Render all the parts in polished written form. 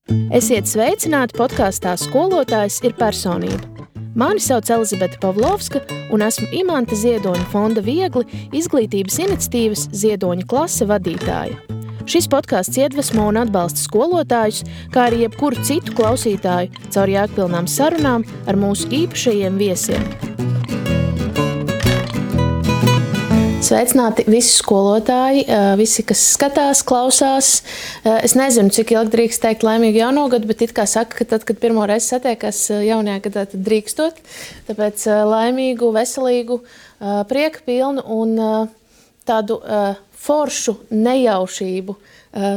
Esiet sveicināti podkāstā Skolotājs ir personība. Mani sauc Elizabete Pavlovska, un esmu Imanta Ziedoņa fonda Viegli izglītības iniciatīvas Ziedoņa klase vadītāja. Šis podkāsts iedvesmo un atbalsta skolotājus, kā arī jebkuru citu klausītāju caur jēgpilnām sarunām ar mūsu īpašajiem viesiem. Sveicināti visi skolotāji, visi, kas skatās, klausās. Es nezinu, cik ilgi drīkst teikt laimīgu jauno gadu, bet it kā saka, ka tad, kad pirmo reizi satiekas jaunajā gadā, tad drīkstot. Tāpēc laimīgu, veselīgu, prieka pilnu un tādu foršu nejaušību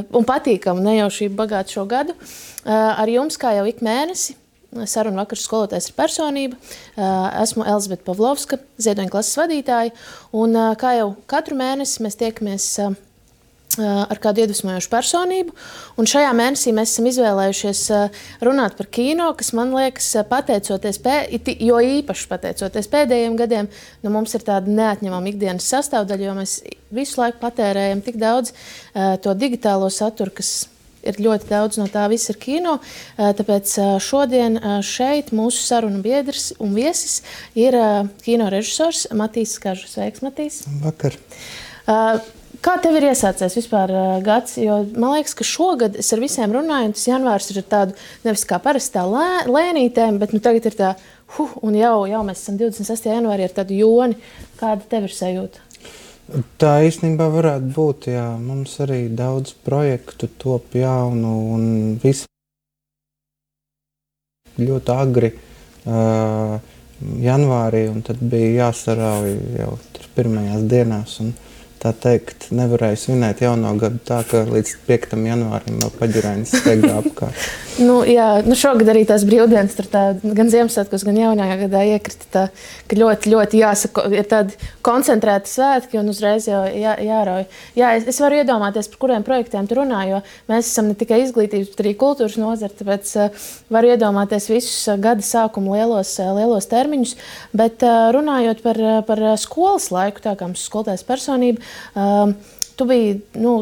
un patīkamu nejaušību bagātu šo gadu. Ar jums, kā jau ik mēnesi, sarunu vakars Skolotājs ir personība. Esmu Elizabete Pavlovska, Ziedoņa klases vadītāja, un kā jau katru mēnesi mēs tiekamies ar kādu iedvesmojošu personību, un šajā mēnesī mēs esam izvēlējušies runāt par kino, kas man liekas, jo īpaši pateicoties pēdējiem gadiem, mums ir tāda neatņemama ikdienas sastāvdaļa, jo mēs visu laiku patērējam tik daudz to digitālo saturu, kas ir ļoti daudz no tā viss ir kino, tāpēc šodien šeit mūsu sarunu biedrs un viesis ir kino režisors Matīs Skaržs. Sveiks, Matīs! Vakar! Kā tev ir iesācies vispār gads? Jo man liekas, ka šogad es ar visiem runāju, un tas janvārs ir tādu, nevis kā parastā lēnītēm, bet tagad ir tā, un jau mēs esam 26. janvārī ar tādu joni. Kāda tev ir sajūta? Tā īstenībā varētu būt, jā. Mums arī daudz projektu top jaunu un visi ļoti agri janvārī, un tad bija jāsarauj jau pirmajās dienās. Un tā teikt, nevarēja svinēt jauno gadu tā, ka līdz 5. janvārim vēl paģirainis steigā apkārt. Šogad arī tās brīvdienas tur gan Ziemassvētkos, gan jaunajā gadā iekrita tā, ka ļoti jāsaka, ir tādi koncentrēti svētki un uzreiz jau jārauj. Jā, es varu iedomāties, par kuriem projektiem tu runā, jo mēs esam ne tikai izglītības, bet arī kultūras nozara, tāpēc varu iedomāties visus gada sākumu lielos termiņus, bet runājot par skolas laiku, tā kā mums skolotājs personība, tu biji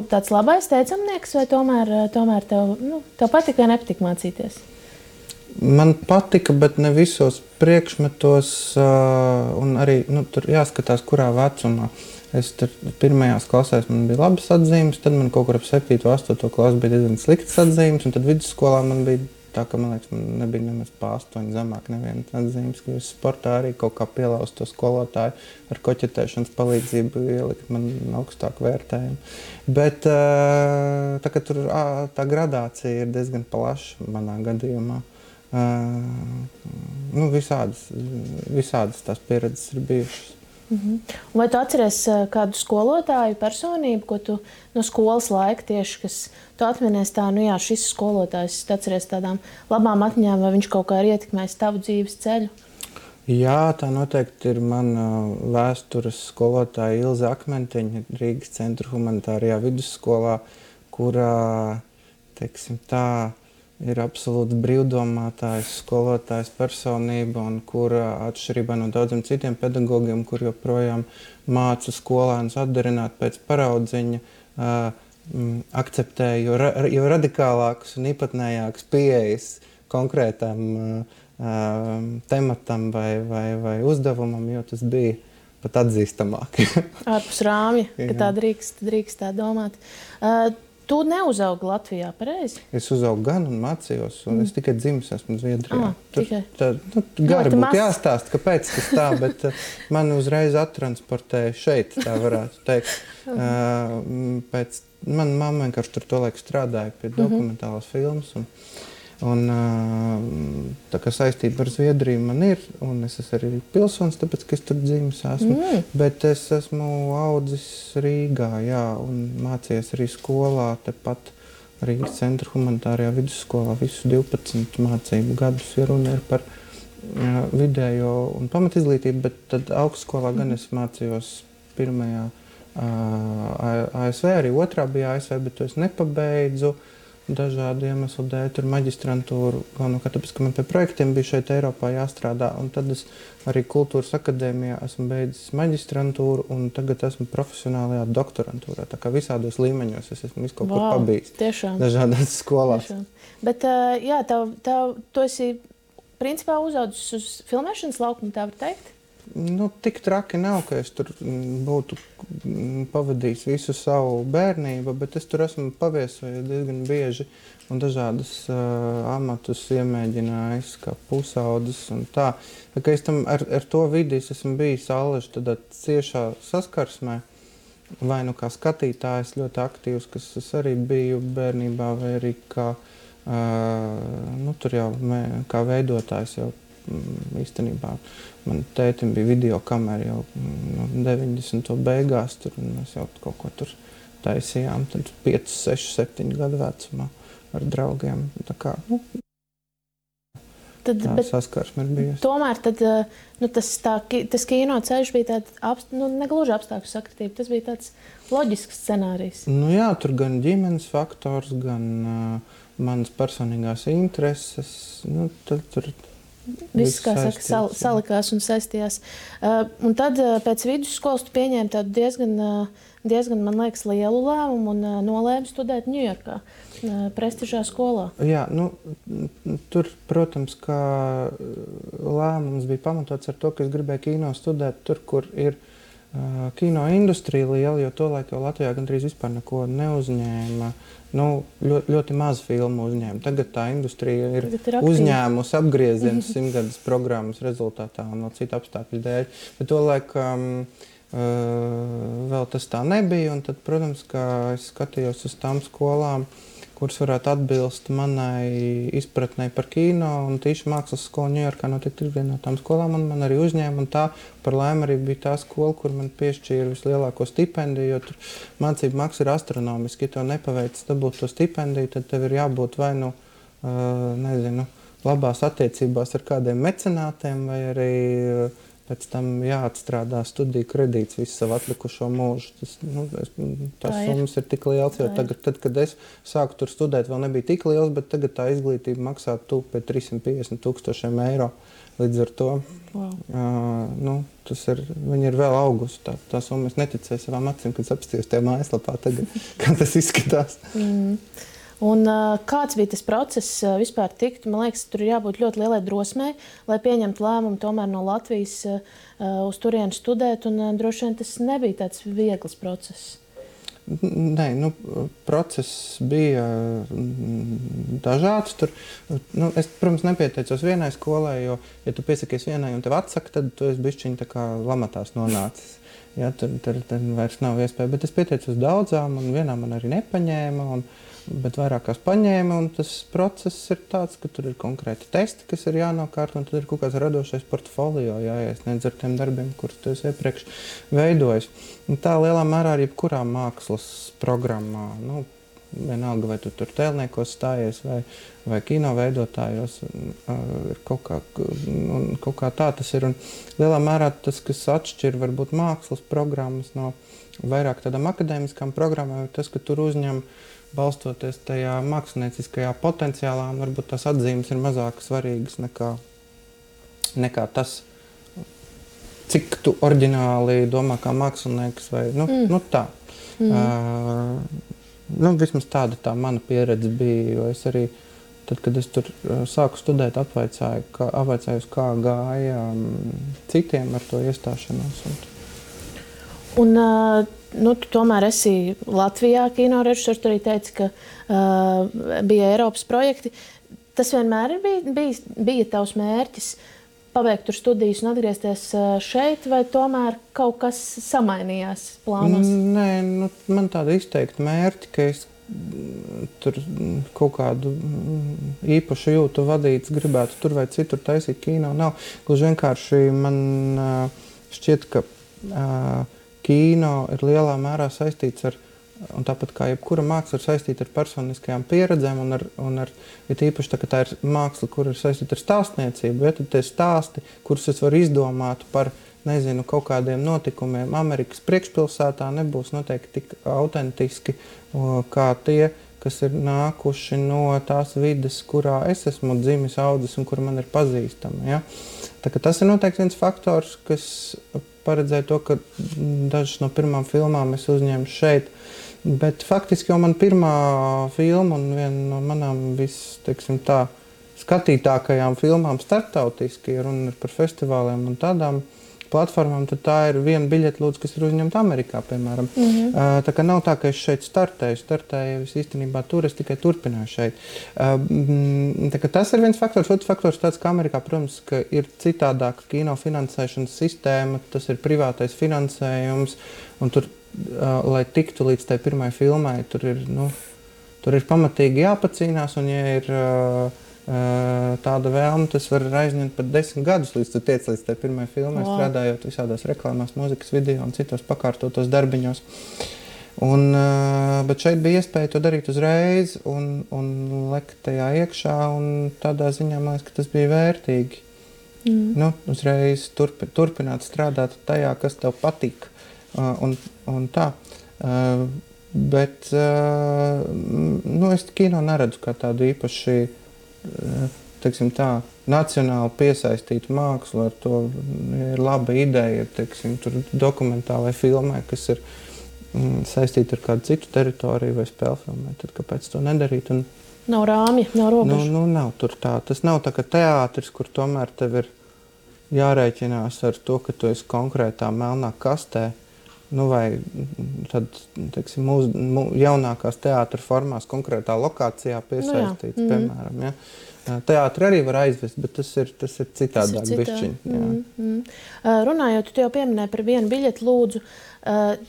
tāds labais teicamnieks, vai tomēr tev patika vai nepatika mācīties? Man patika, bet ne visos priekšmetos, un arī tur jāskatās, kurā vecumā. Es tur pirmajās klasēs man bija labas atzīmes, tad man kaut kur ap 7. un 8. klasu bija diezgan sliktas atzīmes, un tad vidusskolā man bija tā, ka, man liekas, man nebija nemaz pa 8 zemāk nevienas atzīmes, ka es sportā arī kaut kā pielauzu to skolotāju ar koķetēšanas palīdzību ielikt man augstāku vērtējumu. Bet tā, ka tur tā gradācija ir diezgan plaša manā gadījumā. Visādas tās pieredzes ir bijušas. Vai tu atceries kādu skolotāju personību, ko tu no skolas laika tieši, kas tu atminies tā, šis skolotājs, tu atceries tādām labām atmiņām, vai viņš kaut kā ir ietekmējis tavu dzīves ceļu? Jā, tā noteikti ir mana vēstures skolotāja Ilze Akmentiņa Rīgas Centra humanitārajā vidusskolā, kurā, teiksim tā, ir absolūti brīvdomātājs, skolotājs personība, un kura atšķirībā no daudziem citiem pedagogiem, kur joprojām māca skolēnus atdarināt pēc paraudziņa, akceptē jo radikālākus un īpatnējākus pieejas konkrētam tematam vai uzdevumam, jo tas bija pat atzīstamāk. Ārpus rāmja, ka tā drīkst tā domāt. Tu neuzaugi Latvijā, pareizi? Es uzaugu gan un mācījos, un es tikai dzimis esmu Zviedrijā. Tikai. Gari būtu jāstāst, kāpēc tas tā, bet mani uzreiz attransportēja šeit, tā varētu teikt. Mana mamma vienkārši tur to laiku strādāja pie dokumentālās filmas, un tā kā saistība ar Zviedriju man ir, un es esmu arī pilsonis, tāpēc, ka es tur dzimis esmu. Bet es esmu audzis Rīgā, jā, un mācījies arī skolā, tepat Rīgas Centra humanitārajā vidusskolā visu 12 mācību gadus, ja runa ir par vidējo un pamatizglītību, bet tad augstskolā gan es mācījos pirmajā ASV, arī otrā bija ASV, bet to es nepabeidzu. dažādu iemeslu dēļ tur maģistrantūru, galvenokārt tāpēc, ka man pie projektiem bija šeit Eiropā jāstrādā, un tad es arī Kultūras akadēmijā esmu beidzis maģistrantūru, un tagad esmu profesionālajā doktorantūrā, tā kā visādos līmeņos es esmu visu kaut kur pabijis. Tiešām. Dažādās skolās. Tiešām. Bet, jā, tu esi principā uzaudzis uz filmēšanas laukumu, tā var teikt? Nu, tik traki nav, ka es tur būtu pavadījis visu savu bērnību, bet es tur esmu paviesojies diezgan bieži un dažādas amatus iemēģinājis, kā pusaudzis un tā. Tā kā es tam ar to vidi esmu bijis allaži tādā ciešā saskarsmē, vai nu kā skatītājs ļoti aktīvs, kas es arī biju bērnībā, vai arī kā, nu, tur jau kā veidotājs jau īstenībā. Man tētim bija videokamera jau 90. beigās, tur mēs jau kaut ko tur taisījām, tad 5, 6, 7 gadu vecumā ar draugiem. Tā kā, nu, tā saskarsme ir bijusi. Tomēr tad, nu, tas kino ceļš bija tāds, nu, negluži apstākļu sakritība, tas bija tāds loģisks scenārijs. Nu jā, tur gan ģimenes faktors, gan manas personīgās intereses, nu, tad tur viss, kā saka, salikās un saistījās. Un tad pēc vidusskolas tu pieņēmi tādu diezgan, man liekas, lielu lēmumu un nolēmi studēt Ņujorkā, prestižā skolā. Jā, nu, tur, protams, kā lēmums bija pamatots ar to, ka es gribēju kino studēt tur, kur ir kino industrija liela, jo tolaik jau Latvijā gandrīz vispār neko neuzņēma. Nu, ļoti maz filmu uzņēma. Tagad tā industrija ir uzņēmusi apgriezienus 100-gadas programmas rezultātā un vēl citu apstākļu dēļ. Bet tolaik vēl tas tā nebija, un tad, protams, kā es skatījos uz tām skolām, kuras varētu atbilst manai izpratnei par kino, un tīši mākslas skola Ņujorkā noteikti ir viena no tām skolām, un man arī uzņēma, un tā par laimi arī bija tā skola, kur man piešķīra vislielāko stipendiju, jo tur mācību maksa ir astronomiski, ja tev nepaveic dabūt to stipendiju, tad tev ir jābūt vai nu, nezinu, labās attiecībās ar kādiem mecenātiem, vai arī pēc tam jāatstrādā studiju kredīts visu savu atlikušo mūžu. Tās summas ir tik liels, jo tagad, tad, kad es sāku tur studēt, vēl nebija tik liels, bet tagad tā izglītība maksā tuvu pie 350,000 eiro. Līdz ar to nu, viņi ir vēl augusi. Tā summa es neticēju savām acīm, kad apstījos tajā mājaslapā tagad, kā tas izskatās. Un kāds bija tas process vispār tikt? Man liekas, tur ir jābūt ļoti lielai drosmei, lai pieņemtu lēmumu tomēr no Latvijas uz turieni studēt, un droši vien tas nebija tāds viegls process. Nē, nu, process bija dažāds. Tur, nu, es, protams, nepieteicos vienai skolai, jo, ja tu piesakies vienai un tev atsaka, tad tu esi bišķiņ tā kā lamatās nonācis. Ja, tad vairs nav iespēja, bet es pieteicos daudzām, un vienā man arī nepaņēma, bet vairākās paņēma, un tas process ir tāds, ka tur ir konkrēti testi, kas ir jānokārt, un tad ir kaut kāds radošais portfolio jāiesniedz ar tiem darbiem, kurus tu esi iepriekš veidojis. Un tā lielā mērā arī jebkurā mākslas programmā, nu, vienalga, vai tu tur tēlniekos stājies, vai kino veidotājos, ir kaut kā tā tas ir. Un lielā mērā tas, kas atšķir varbūt mākslas programmas no vairāk tādām akadēmiskām programmām, ir tas, ka tur uzņem balstoties tajā mākslinieckajā potenciālā, un varbūt tās atzīmes ir mazāk svarīgas nekā tas, cik tu oriģināli domā kā mākslinieks, vai nu tā. Nu, vismaz tāda tā mana pieredze bija, jo es arī, tad, kad es tur sāku studēt, apvaicāju, kā gāja citiem ar to iestāšanos. Un nu, tu tomēr esi Latvijā kinorežisors, tu arī teici, ka bija Eiropas projekti. Tas vienmēr bija tavs mērķis pabeigt tur studijas un atgriezties šeit, vai tomēr kaut kas samainījās plānos? Nē, nu, man tāda izteikta mērķi, ka es tur kaut kādu īpašu jūtu vadīts, gribētu tur vai citur taisīt kino. Nav. Gluži vienkārši man šķiet, ka kino ir lielā mērā saistīts ar, un tāpat kā jebkura māksla ir saistīta ar personiskajām pieredzēm, un ir īpaši tā, ka tā ir māksla, kur ir saistīta ar stāstniecību, ja tad tie stāsti, kurus es varu izdomāt par, nezinu, kaut kādiem notikumiem Amerikas priekšpilsētā, nebūs noteikti tik autentiski kā tie, kas ir nākuši no tās vides, kurā es esmu dzimis, audzis un kur man ir pazīstama. Ja? Tā, tas ir noteikti viens faktors, kas paredzēja to, ka dažas no pirmām filmām es uzņēmu šeit. Bet faktiski jau man pirmā filma un viena no manām skatītākajām filmām starptautiski, ja runa ir par festivāliem un tādām platformām, tad tā ir viena biļete, lūdzu, kas ir uzņemta Amerikā, piemēram. Tā kā nav tā, ka es šeit startēju es īstenībā tur, es tikai turpināju šeit. Tā kā tas ir viens faktors. Otrs faktors tāds, ka Amerikā, protams, ka ir citādāka kino finansēšanas sistēma, tas ir privātais finansējums, un tur, lai tiktu līdz tai pirmai filmai, tur ir pamatīgi jāpacīnās, un ja ir tāda vēlme, tas var aizņemt pat 10 gadus, līdz tu tiec līdz tai pirmai filmai, strādājot visādās reklāmās, mūzikas video un citos pakārtotos darbiņos. Bet šeit bija iespēja to darīt uzreiz un lekt tajā iekšā, un tādā ziņā man liekas, ka tas bija vērtīgi. Uzreiz turpināt strādāt tajā, kas tev patīk. Un tā. Bet es kino neredzu kā tādu īpaši teiksim tā, nacionāli piesaistītu mākslu, ar to ir laba ideja, teiksim, tur dokumentālai filmai, kas ir saistīta ar kādu citu teritoriju vai spēļu filmai, tad kāpēc to nedarīt? Nav rāmja, nav robežu. Nav tur tā. Tas nav tā kā teātris, kur tomēr tev ir jārēķinās ar to, ka tu esi konkrētā melnā kastē, vai tad, teiksim, jaunākās teātra formās konkrētā lokācijā piesaistīts, piemēram. Ja? Teātri arī var aizvest, bet tas ir citādāk bišķiņ. Runājot, tu jau pieminēji par vienu biļeti, lūdzu.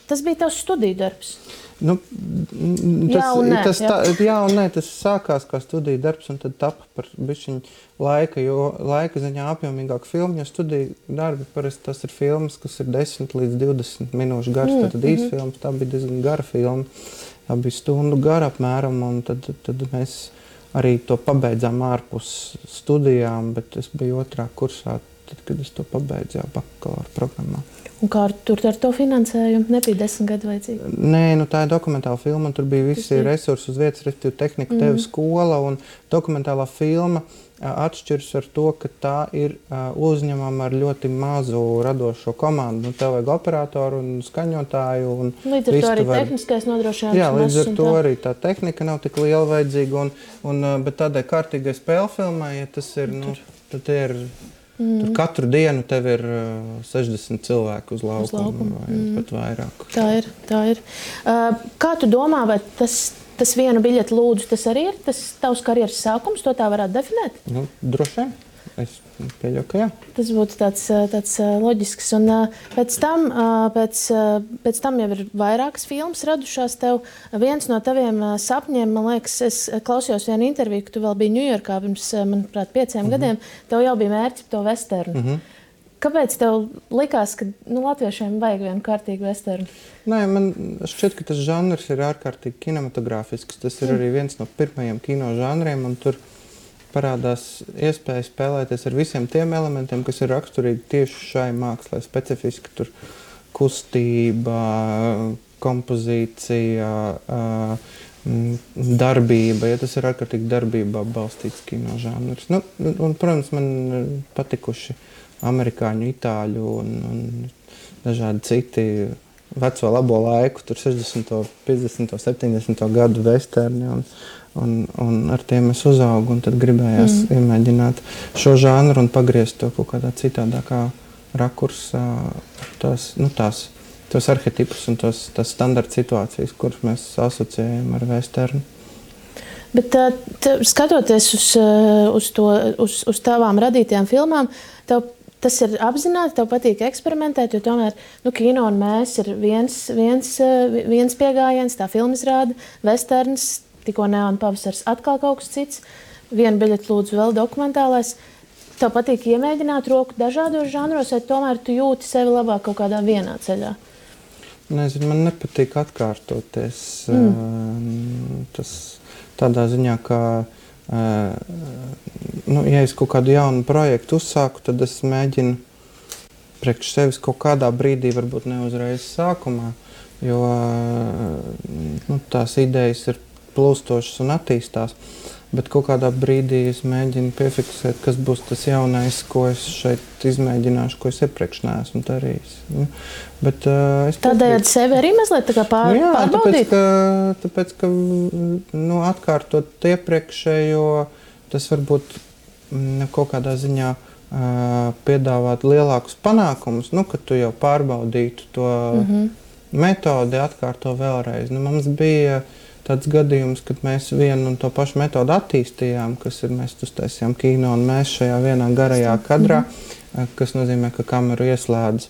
Tas bija tavs studiju darbs? Jā un nē, tas sākās kā studiju darbs un tad tapa par bišķiņu laika, jo laika ziņā apjomīgāk filmu, jo studiju darbi parasti tas ir filmas, kas ir 10 līdz 20 minūšu garas, tad īsti filmas, tā bija diezgan gara filma, tā bija stundu gara apmēram, un tad mēs arī to pabeidzām ārpus studijām, bet es biju otrā kursā, tad, kad es to pabeidzu jau bakalaura programmā. Un kā tur ar to finansējumu? Nebija 10 gadu vajadzīgi? Nē, tā ir dokumentāla filma, un tur bija visi resursi uz vietas, respektīvi tehnika, tev skola, un dokumentālā filma atšķiras ar to, ka tā ir uzņemama ar ļoti mazu radošo komandu. Tev vajag operatoru un skaņotāju. Līdz ar to arī tehniskais nodrošinājums. Jā, līdz ar to arī tā tehnika nav tik liela vajadzīga, bet tādai kārtīgai spēļu filmai, ja tas ir, tad ir... Tur katru dienu tev ir 60 cilvēku uz laukuma vai pat vairāk. Tā ir. Kā tu domā, vai tas vienu biļeti lūdzu, tas arī ir tas tavs karjeras sākums? To tā varētu definēt? Droši vien. Es pieļauju, ka jā. Tas būtu tāds loģisks. Un pēc tam jau ir vairākas filmas radušās tev. Viens no taviem sapņiem, man liekas, es klausījos vienu interviju, ka tu vēl biji Ņujorkā pirms, manuprāt, 5 gadiem. Tev jau bija mērķi to vesternu. Kāpēc tev likās, ka latviešiem vajag vienu kārtīgu vesternu? Nē, man šķiet, ka tas žanrs ir ārkārtīgi kinematogrāfisks. Tas ir arī viens no pirmajiem kino žanriem, un tur parādās iespēja spēlēties ar visiem tiem elementiem, kas ir raksturīgi tieši šai mākslai. Specifiski tur kustība, kompozīcija, darbība. Ja tas ir ārkārtīgi darbībā balstīts kino žanrs. Un, protams, man patikuši amerikāņu, itāļu un dažādi citi veco labo laiku, tur 60., 50., 70. gadu vesterni. Un ar tiem es uzaugu, un tad gribējās iemēģināt šo žanru un pagriezt to kaut kādā citādākā rakursā, tos arhetipus un tās standarta situācijas, kuras mēs asociējam ar vesternu. Bet skatoties uz tavām radītajām filmām, tas ir apzināti, tev patīk eksperimentēt, jo tomēr kino un mēs ir viens piegājiens, tā filmizrāde, vesterns, tikko Neona pavasars atkal kaut kas cits, vienu biļeti lūdzu vēl dokumentālais. Tev patīk iemēģināt roku dažādos žanros, vai tomēr tu jūti sevi labāk kaut kādā vienā ceļā? Nezinu, man nepatīk atkārtoties. Tas tādā ziņā, ka, ja es kaut kādu jaunu projektu uzsāku, tad es mēģinu priekš sevis kaut kādā brīdī, varbūt ne uzreiz sākumā, jo tās idejas ir plūstošas un attīstās. Bet kaut kādā brīdī es mēģinu piefiksēt, kas būs tas jaunais, ko es šeit izmēģināšu, ko es iepriekš neesmu darījis. Bet, tādējādi sevi arī mazliet tā kā pārbaudīt? Tāpēc, ka atkārtot iepriekšējo, tas varbūt kaut kādā ziņā piedāvāt lielākus panākumus, kad tu jau pārbaudītu to metodi, atkārto vēlreiz. Mums bija tāds gadījums, kad mēs vienu un to pašu metodu attīstījām, kas ir, mēs uztaisījām kino un mēs šajā vienā garajā kadrā, kas nozīmē, ka kameru ieslēdz,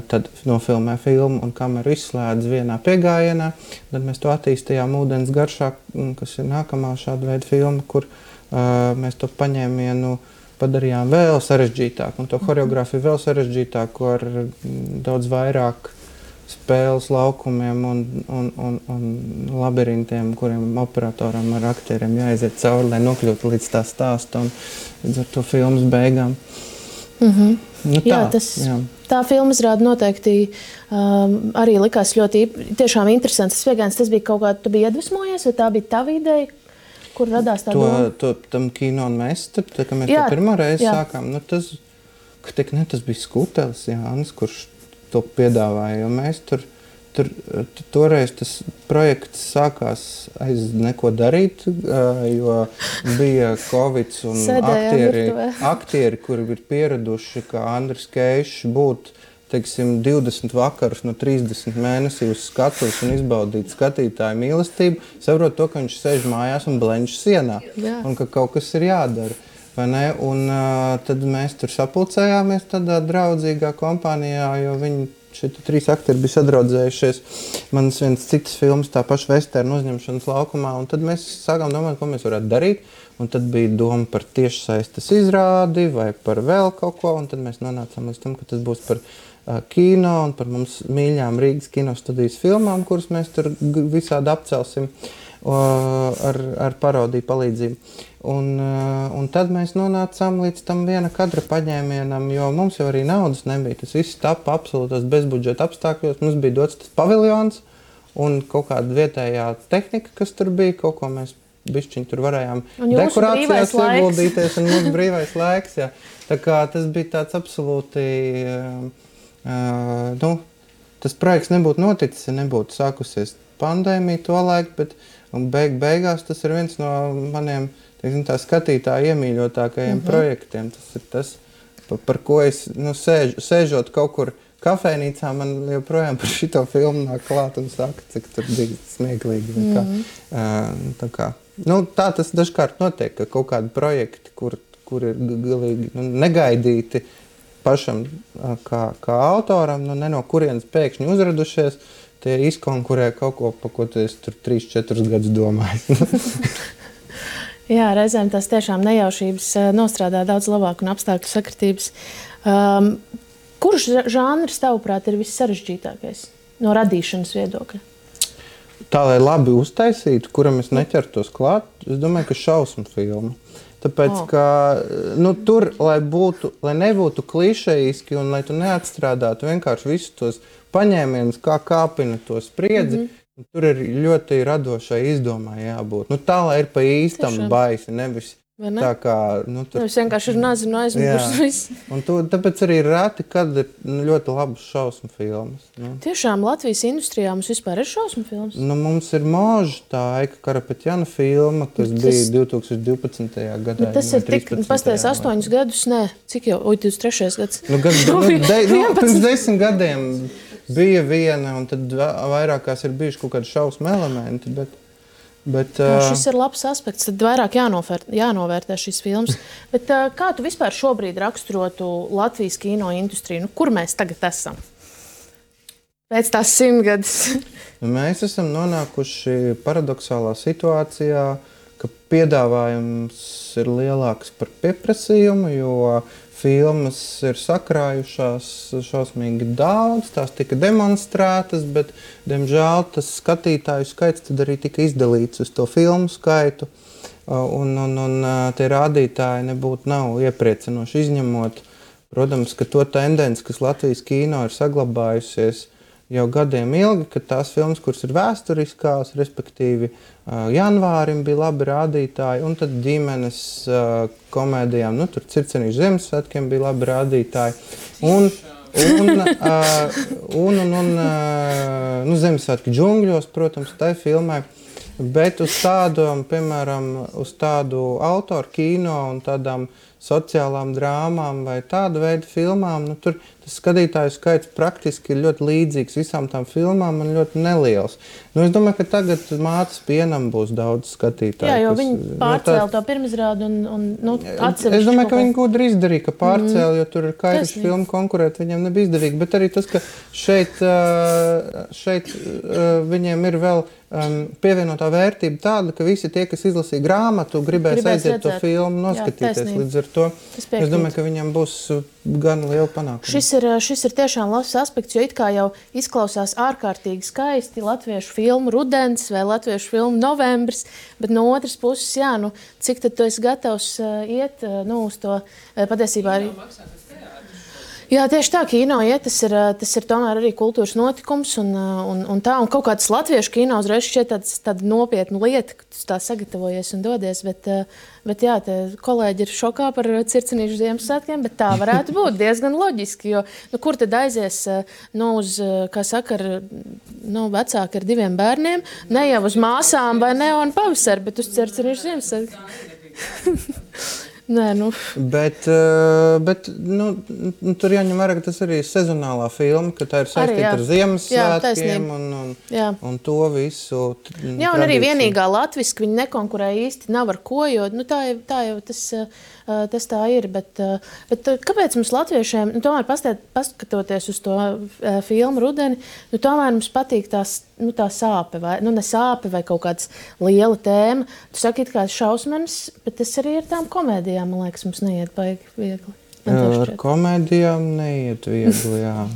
tad nofilmē filmu un kameru izslēdz vienā piegājienā. Tad mēs to attīstījām ūdens garšā, kas ir nākamā šāda veida filma, kur mēs to paņēmienu padarījām vēl sarežģītāk un to choreogrāfiju vēl sarežģītāku ar daudz vairāk spēles laukumiem un labirintiem, kuriem operatoram ar aktieriem jāiziet cauri, lai nokļūtu līdz tā stāsta un līdz ar to filmas beigām. Tā filma izrāda noteikti arī likās ļoti tiešām interesants. Tas bija kaut kā, tu biji iedvesmojies, vai tā bija tava ideja, kur radās tā doma? Tam kino un mēs, kad mēs to pirmo reizi sākām, tas bija Skutelis Jānis, kurš to piedāvāja, jo mēs toreiz tas projekts sākās aiz neko darīt, jo bija Covids un aktieri, kuri ir pieraduši, kā Andris Keišs, būt, 20 vakarus no 30 mēnesī uz skatuves un izbaudīt skatītāju mīlestību, saprot to, ka viņš sēž mājās un blenž sienā, un ka kaut kas ir jādara. Un tad mēs tur sapulcējāmies tādā draudzīgā kompānijā, jo viņi šie 3 aktieri bija sadraudzējušies. Manas viens citas filmas, tā paša vesternu uzņemšanas laukumā, un tad mēs sākām domāt, ko mēs varētu darīt. Un tad bija doma par tiešsaistes izrādi vai par vēl kaut ko, un tad mēs nonācām līdz tam, ka tas būs par kino un par mums mīļām Rīgas kinostudijas filmām, kuras mēs tur visādi apcelsim ar parodiju palīdzību. Un tad mēs nonācām līdz tam viena kadra paņēmienam, jo mums jau arī naudas nebija. Tas viss tapa absolūtos bezbudžeta apstākļos. Mums bija dots tas paviljons un kaut kāda vietējā tehnika, kas tur bija, kaut ko mēs bišķiņ tur varējām dekorācijās ieguldīties un mūsu brīvais laiks. Jā. Tā kā tas bija tāds absolūti, tas projekts nebūtu noticis, ja nebūtu sākusies pandēmija to laiku, bet beigās tas ir viens no maniem tā skatītāja iemīļotākajiem projektiem. Tas ir tas, par ko es sēžot kaut kur kafejnīcā, man joprojām par šito filmu nāk klāt un saka, cik tur bija smieklīgi. Tā tas dažkārt notiek, ka kaut kādi projekti, kur ir galīgi negaidīti pašam kā autoram, ne no kurienes pēkšņi uzradušies, tie izkonkurē kaut ko, pa ko tu esi tur 3-4 gadus domājis. Jā, reizēm tās tiešām nejaušības nostrādā daudz labāk un apstākļu sakritības. Kurš žanrs, tavuprāt, ir vissarežģītākais no radīšanas viedokļa? Tā, lai labi uztaisītu, kuram es neķertos klāt, es domāju, ka šausmu filma. Tāpēc, ka tur, lai nebūtu klišejiski un lai tu neatstrādātu vienkārši visus tos paņēmienus, kā kāpina to spriedzi, tur ir ļoti radošai izdomai jābūt. Tā, lai ir pa īstam baisi, nevis tā kā... Nevis vienkārši ir nazinu aizmugurs viss. Un tāpēc arī reti, kad ir ļoti labas šausmu filmas. Tiešām Latvijas industrijā mums vispār ir šausmu filmas? Mums ir Moža, tā Aika Karapetjana filma, kas bija 2012. gadā. Tas ir tik, pastājas 8 gadus, cik jau, 23. gads? Pirms 10 gadiem bija viena, un tad vairākās ir bijuši kaut kādi šausmu elementi, bet šis ir labs aspekts, tad vairāk jānovērtē šīs filmas. Bet kā tu vispār šobrīd raksturotu Latvijas kino industriju? Kur mēs tagad esam? Pēc tās 100 gadus. Mēs esam nonākuši paradoxālā situācijā, ka piedāvājums ir lielāks par pieprasījumu, jo filmas ir sakrājušās šausmīgi daudz, tās tika demonstrētas, bet, diemžēl, tas skatītāju skaits tad arī tika izdalīts uz to filmu skaitu, un tie rādītāji nav iepriecinoši izņemot. Protams, ka to tendenci, kas Latvijas kino ir saglabājusies, jau gadiem ilgi, ka tās filmas, kuras ir vēsturiskās, respektīvi janvārim bija labi rādītāji, un tad ģimenes komēdijām, nu, tur Circenīšu Ziemassvētkiem bija labi rādītāji. Un Ziemassvētku džungļos, protams, tai filmai. Bet uz tādām, piemēram, uz tādu autoru kino un tādām sociālām drāmām vai tādu veidu filmām, nu, tur tas skatītāju skaits praktiski ir ļoti līdzīgs visām tām filmām un ļoti neliels. Nu, es domāju, ka tagad Mātes pienam būs daudz skatītāju. Jā, jo viņi pārcēla to pirmizrādi un atsevišķi. Es domāju, ka viņi gudri izdarīja, ka pārcēla, jo tur ir kairiši filmu konkurēt, viņiem nebija izdevīgi. Bet arī tas, ka šeit viņiem ir vēl pievienotā vērtība tāda, ka visi tie, kas izlasīja grāmatu, gribēs aiziet to filmu noskatīties. Jā, līdz ar to es domāju, ka viņam būs gan liela panākuma. Šis ir tiešām labs aspekts, jo it kā jau izklausās ārkārtīgi skaisti latviešu filmu Rudens vai latviešu filmu Novembris, bet no otras puses, jā, nu, cik tad tu esi gatavs iet uz to patiesībā arī... Jā, tieši tā, kino iet, tas ir tomēr arī kultūras notikums un tā, un kaut kāds latviešu kino uzreiz šķiet tāda nopietna lieta, ka tu tā sagatavojies un dodies, bet jā, te kolēģi ir šokā par Circenīšu Ziemassvētkiem, bet tā varētu būt diezgan loģiski, jo, nu, kur tad aizies, uz, kā saka, vecāki ar 2 bērniem, ne jau uz māsām vai Neonu pavasari, bet uz Circenīšu Ziemassvētkiem. Nē, nu. Bet tur jāņem vērā, ka tas arī ir sezonālā filma, ka tā ir saistīta ar Ziemassvētkiem un to visu. Jā, un arī vienīgā latviski viņi nekonkurē īsti nav ar ko, jo nu, tā jau tas tā ir. Bet kāpēc mums latviešiem, nu, tomēr paskatoties uz to filmu Rudeni, nu, tomēr mums patīk tā sāpe, vai, nu, ne sāpe vai kaut kāds liela tēma. Tu saki, it kā šausmenis, bet tas arī ir tām komēdijām, man liekas, mums neiet baigi viegli. Ar komēdijām neiet viegli, jā.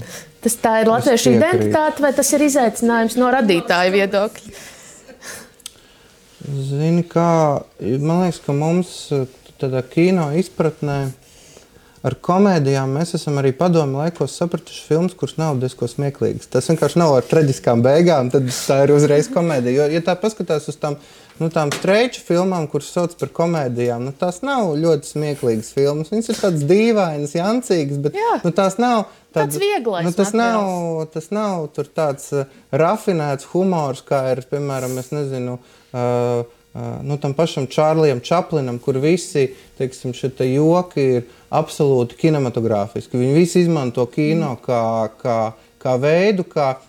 Tā ir latviešu identitāte, vai tas ir izaicinājums no radītāja viedokļa? Zini kā, man liekas, ka mums tādā kino izpratnē ar komēdijām mēs esam arī padomu laikos sapratuši filmas, kuras nav diezko smieklīgas. Tas vienkārši nav ar traģiskām beigām, tad tā ir uzreiz komēdija. Jo, ja tā paskatās uz tām streiču filmām, kuras sauc par komēdijām, nu, tās nav ļoti smieklīgas filmas. Viņas ir tādas dīvainas, jancīgas, bet nu, tās nav tāds vieglais materiāls. Tas nav tur tāds rafinēts humors, kā ir, piemēram, es nezinu, tam pašam Čārlijam Čaplinam, kur visi, teiksim, šie joki ir absolūti kinematogrāfiski. Viņi visi izmanto kino kā veidu,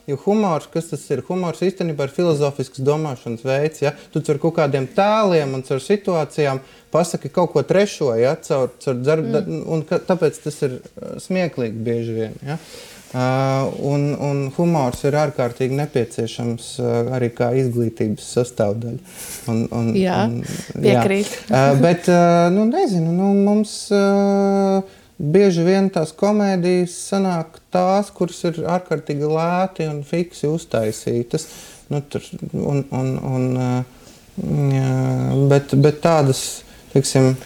jo humors, kas tas ir? Humors īstenībā ir filozofisks domāšanas veids, ja? Tu caur kaut kādiem tēliem un caur situācijām pasaki kaut ko trešo, ja? Un tāpēc tas ir smieklīgi bieži vien, ja? Un humors ir ārkārtīgi nepieciešams arī kā izglītības sastāvdaļa. Jā, piekrīt. Bet, nezinu, mums bieži vien tās komēdijas sanāk tās, kuras ir ārkārtīgi lēti un fiksi uztaisītas. Bet tādas, teiksim,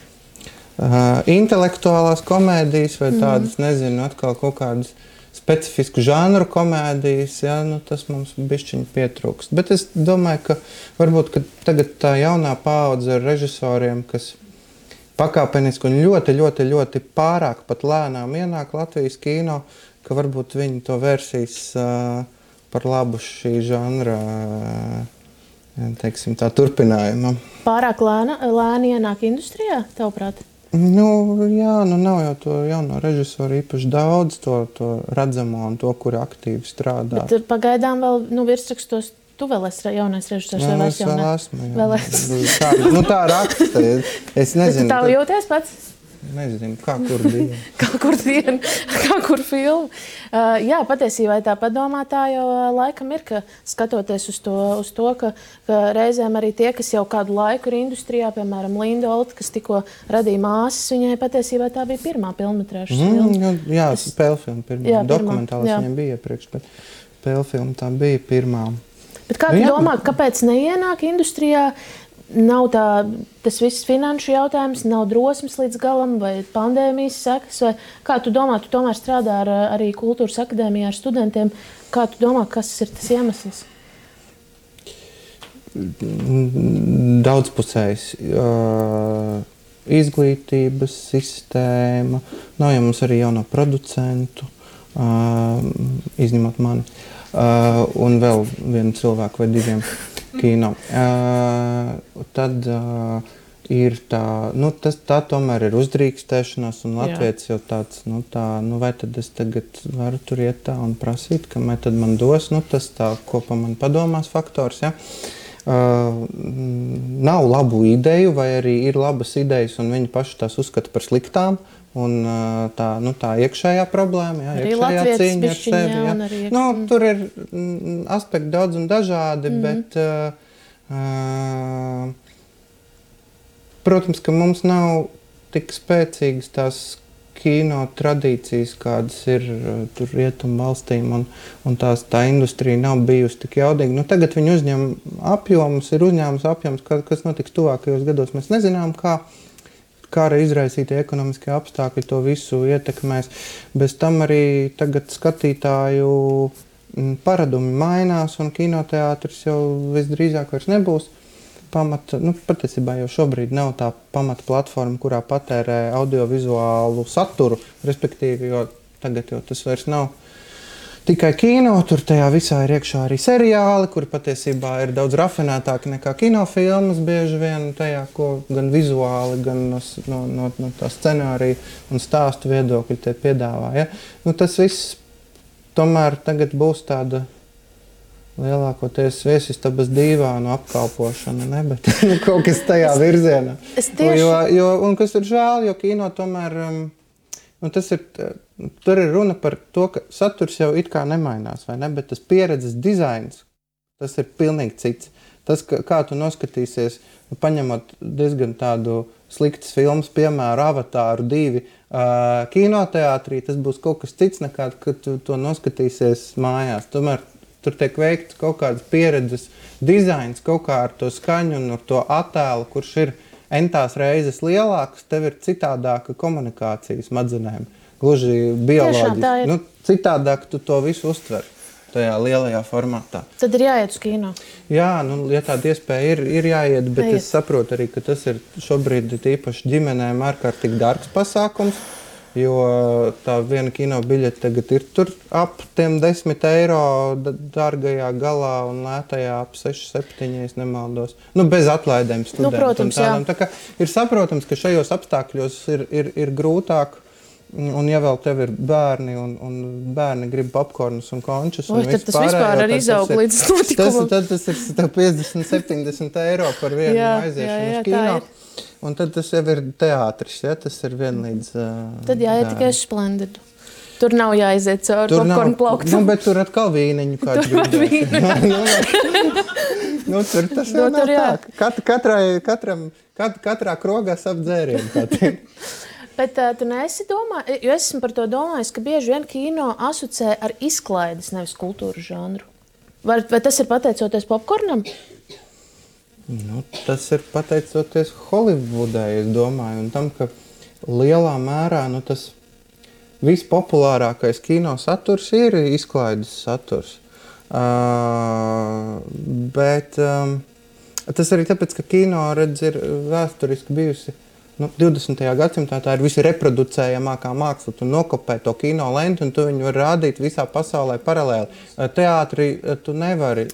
intelektuālās komēdijas vai tādas, nezinu, atkal kaut kādas specifisku žanru komēdijas, ja, tas mums bišķiņ pietrūkst. Bet es domāju, ka varbūt ka tagad tā jaunā paudze ar režisoriem, kas pakāpeniski un ļoti, ļoti, ļoti pārāk pat lēnām ienāk Latvijas kino, ka varbūt viņi to vērsīs par labu šī žanra, teiksim, tā turpinājuma. Pārāk lēni ienāk industrijā, tavuprāt? Jā, nav jau to jauno režisoru īpaši daudz, to redzamo un to, kuri aktīvi strādā. Bet pagaidām vēl virsrakstos tu vēl esi jaunais režisors vai vairs jaunais? Es vēl esmu, tā raksta. Es nezinu. Tā jūties pats? Nezinu, kā kur diena. Kā kur filmu. Jā, patiesībā tā padomā tā jau laikam ir, ka skatoties uz to, ka reizēm arī tie, kas jau kādu laiku ir industrijā, piemēram, Linda Olta, kas tikko radīja Māsas, viņai patiesībā tā bija pirmā pilnmetrāžas filma. Jā, spēlfilma pirmā. Dokumentālis viņam bija iepriekš, bet spēlfilma tā bija pirmā. Bet kā tu domā, kāpēc neienāk industrijā nav tas viss finanšu jautājums, nav drosmes līdz galam vai pandēmijas sekas? Vai kā tu domā, tu tomēr strādā arī Kultūras akadēmijā ar studentiem, kā tu domā, kas ir tas iemesls? Daudzpusējs. Izglītības sistēma, nav jau mums arī jauno producentu, izņemot mani, un vēl vienu cilvēku vai diviem kino. Tad ir tā, tā tomēr ir uzdrīkstēšanās, un Latvijas jau tāds, vai tad es tagad varu tur iet tā un prasīt, kamēr tad man dos, tas tā, ko pa man padomās faktors, ja. Nav labu ideju, vai arī ir labas idejas, un viņi paši tās uzskata par sliktām, un tā iekšējā problēma, jā, iekšējā cīņa ar sevi. Jā. Tur ir aspekti daudz un dažādi, bet, protams, ka mums nav tik spēcīgas tās kino tradīcijas, kādas ir tur rietumu valstīm, un tā industrija nav bijusi tik jaudīga. Tagad viņi uzņem apjomus, ir uzņēmums apjoms, kas notiks tuvākajos gados. Mēs nezinām, kā izraisītie ekonomiskie apstākļi to visu ietekmēs. Bez tam arī tagad skatītāju paradumi mainās, un kinoteātris jau visdrīzāk vairs nebūs patiesībā jau šobrīd nav tā pamata platforma, kurā patērē audiovizuālu saturu, respektīvi, jo tagad jau tas vairs nav tikai kino, tur tajā visā ir iekšā arī seriāli, kuri patiesībā ir daudz rafinētāki nekā kinofilmas bieži vien tajā, ko gan vizuāli, gan no tā scenārija un stāstu viedokļi te piedāvā. Ja? Tas viss tomēr tagad būs tāda lielākoties viesistabas dīvānu apkalpošana, ne? Bet kaut kas tajā virzienā. Un kas ir žēl, jo kino tomēr, tur ir runa par to, ka saturs jau it kā nemainās, vai ne? Bet tas pieredzes dizains, tas ir pilnīgi cits. Tas, kā tu noskatīsies, paņemot diezgan tādu sliktas filmas, piemēram, Avatāru 2 kinoteātrī, tas būs kaut kas cits nekā, kad tu to noskatīsies mājās. Tomēr tur tiek veikts kaut kādas pieredzes dizains, kaut kā ar to skaņu un ar to attēlu, kurš ir entās reizes lielāks, tev ir citādāka komunikācija smadzenēm, gluži bioloģiski. Citādāk tu to visu uztver tajā lielajā formātā. Tad ir jāiet uz kino. Jā, ja tāda iespēja ir jāiet, bet es saprotu arī, ka tas ir šobrīd īpaši ģimenēm ārkārtīgi dārgs pasākums, jo tā viena kino biļete tagad ir tur ap tiem 10 eiro dārgajā galā un lētajā ap 6-7, ja nemaldos. Bez atlaidēm studentiem. Protams, jā. Tā kā ir saprotams, ka šajos apstākļos ir grūtāk, un ja vēl tev ir bērni, un bērni grib popkornus un končus, un tad tas vispār arī izaug līdz notikumam. Tad tas ir 50-70 eiro par vienu aiziešanu uz kino. Un tad tas jau ir teātris, ja? Tas ir vienlīdz... Tad jāiet tikai Splendidu. Tur nav jāiziet cauri popkornu plauktam. Bet tur atkal vīniņu kāds gribēs. Tur tas jau nav tā. Katrā krogā sap dzērienu. Bet tu neesi domājis, jo esmu par to domājis, ka bieži vien kino asociē ar izklaides, nevis kultūru žanru. Vai tas ir pateicoties popkornam? Tas ir pateicoties Holivudai, es domāju, un tam, ka lielā mērā tas vispopulārākais kino saturs ir izklaides saturs. Bet tas arī tāpēc, ka kino, redz, ir vēsturiski bijusi 20. gadsimtā, tā ir visi reproducējamākā māksla. Tu nokopē to kino lentu, un tu viņu var rādīt visā pasaulē paralēli. Teātrī tu nevari.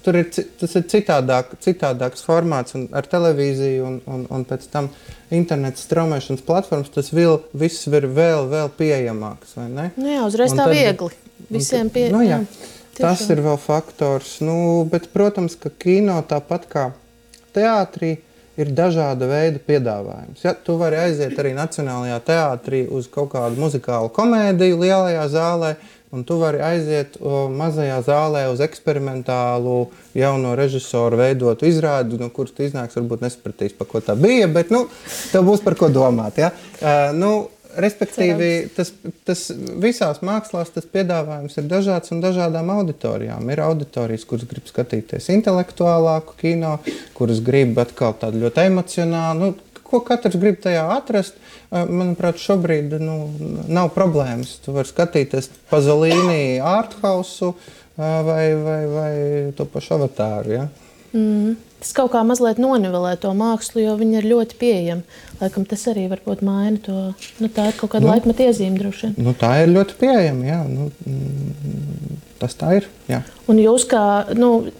Tas ir citādāks formāts, un ar televīziju un pēc tam interneta straumēšanas platformas tas viss ir vēl pieejamāks, vai ne? Uzreiz tā viegli. Visiem pieejamāk. Tas ir vēl faktors. Bet, protams, ka kino tāpat kā teātrī ir dažāda veida piedāvājums. Ja, tu vari aiziet arī Nacionālajā teātrī uz kaut kādu muzikālu komēdiju lielajā zālē, un tu vari aiziet mazajā zālē uz eksperimentālu jauno režisoru veidotu izrādi, no kuras tu iznāks, varbūt nesapratīs, pa ko tā bija, bet tev būs par ko domāt. Ja? respektīvi, tas visās mākslās tas piedāvājums ir dažāds un dažādām auditorijām. Ir auditorijas, kuras grib skatīties intelektuālāku kino, kuras grib atkal tādu ļoti emocionālu, ko katrs grib tajā atrast. Manuprāt, šobrīd nav problēmas. Tu vari skatīties Pazolīni arthausu vai to pašu Avatāru, ja? Tas kaut kā mazliet nonivelē to mākslu, jo viņi ir ļoti pieejami. Laikam tas arī varbūt maina to, tā ir kaut kāda laikmeta iezīme droši vien. Tā ir ļoti pieejama, jā. Tas tā ir, jā. Un jūs kā,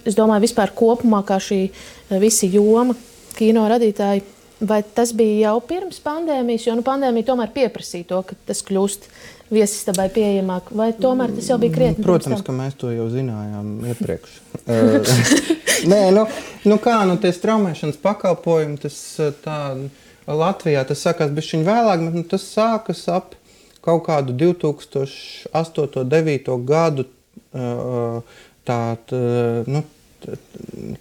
es domāju, vispār kopumā kā šī visi joma, kino radītāji, vai tas bija jau pirms pandēmijas, jo pandēmija tomēr pieprasīja to, ka tas kļūst viesistabai pieejamāk, vai tomēr tas jau bija krietni? Protams, ka mēs to jau zinājām iepriekš. Nē, tie straumēšanas pakalpojumi, tas tā Latvijā, tas sākās bišķiņ vēlāk, bet tas sākas ap kaut kādu 2008-2009 gadu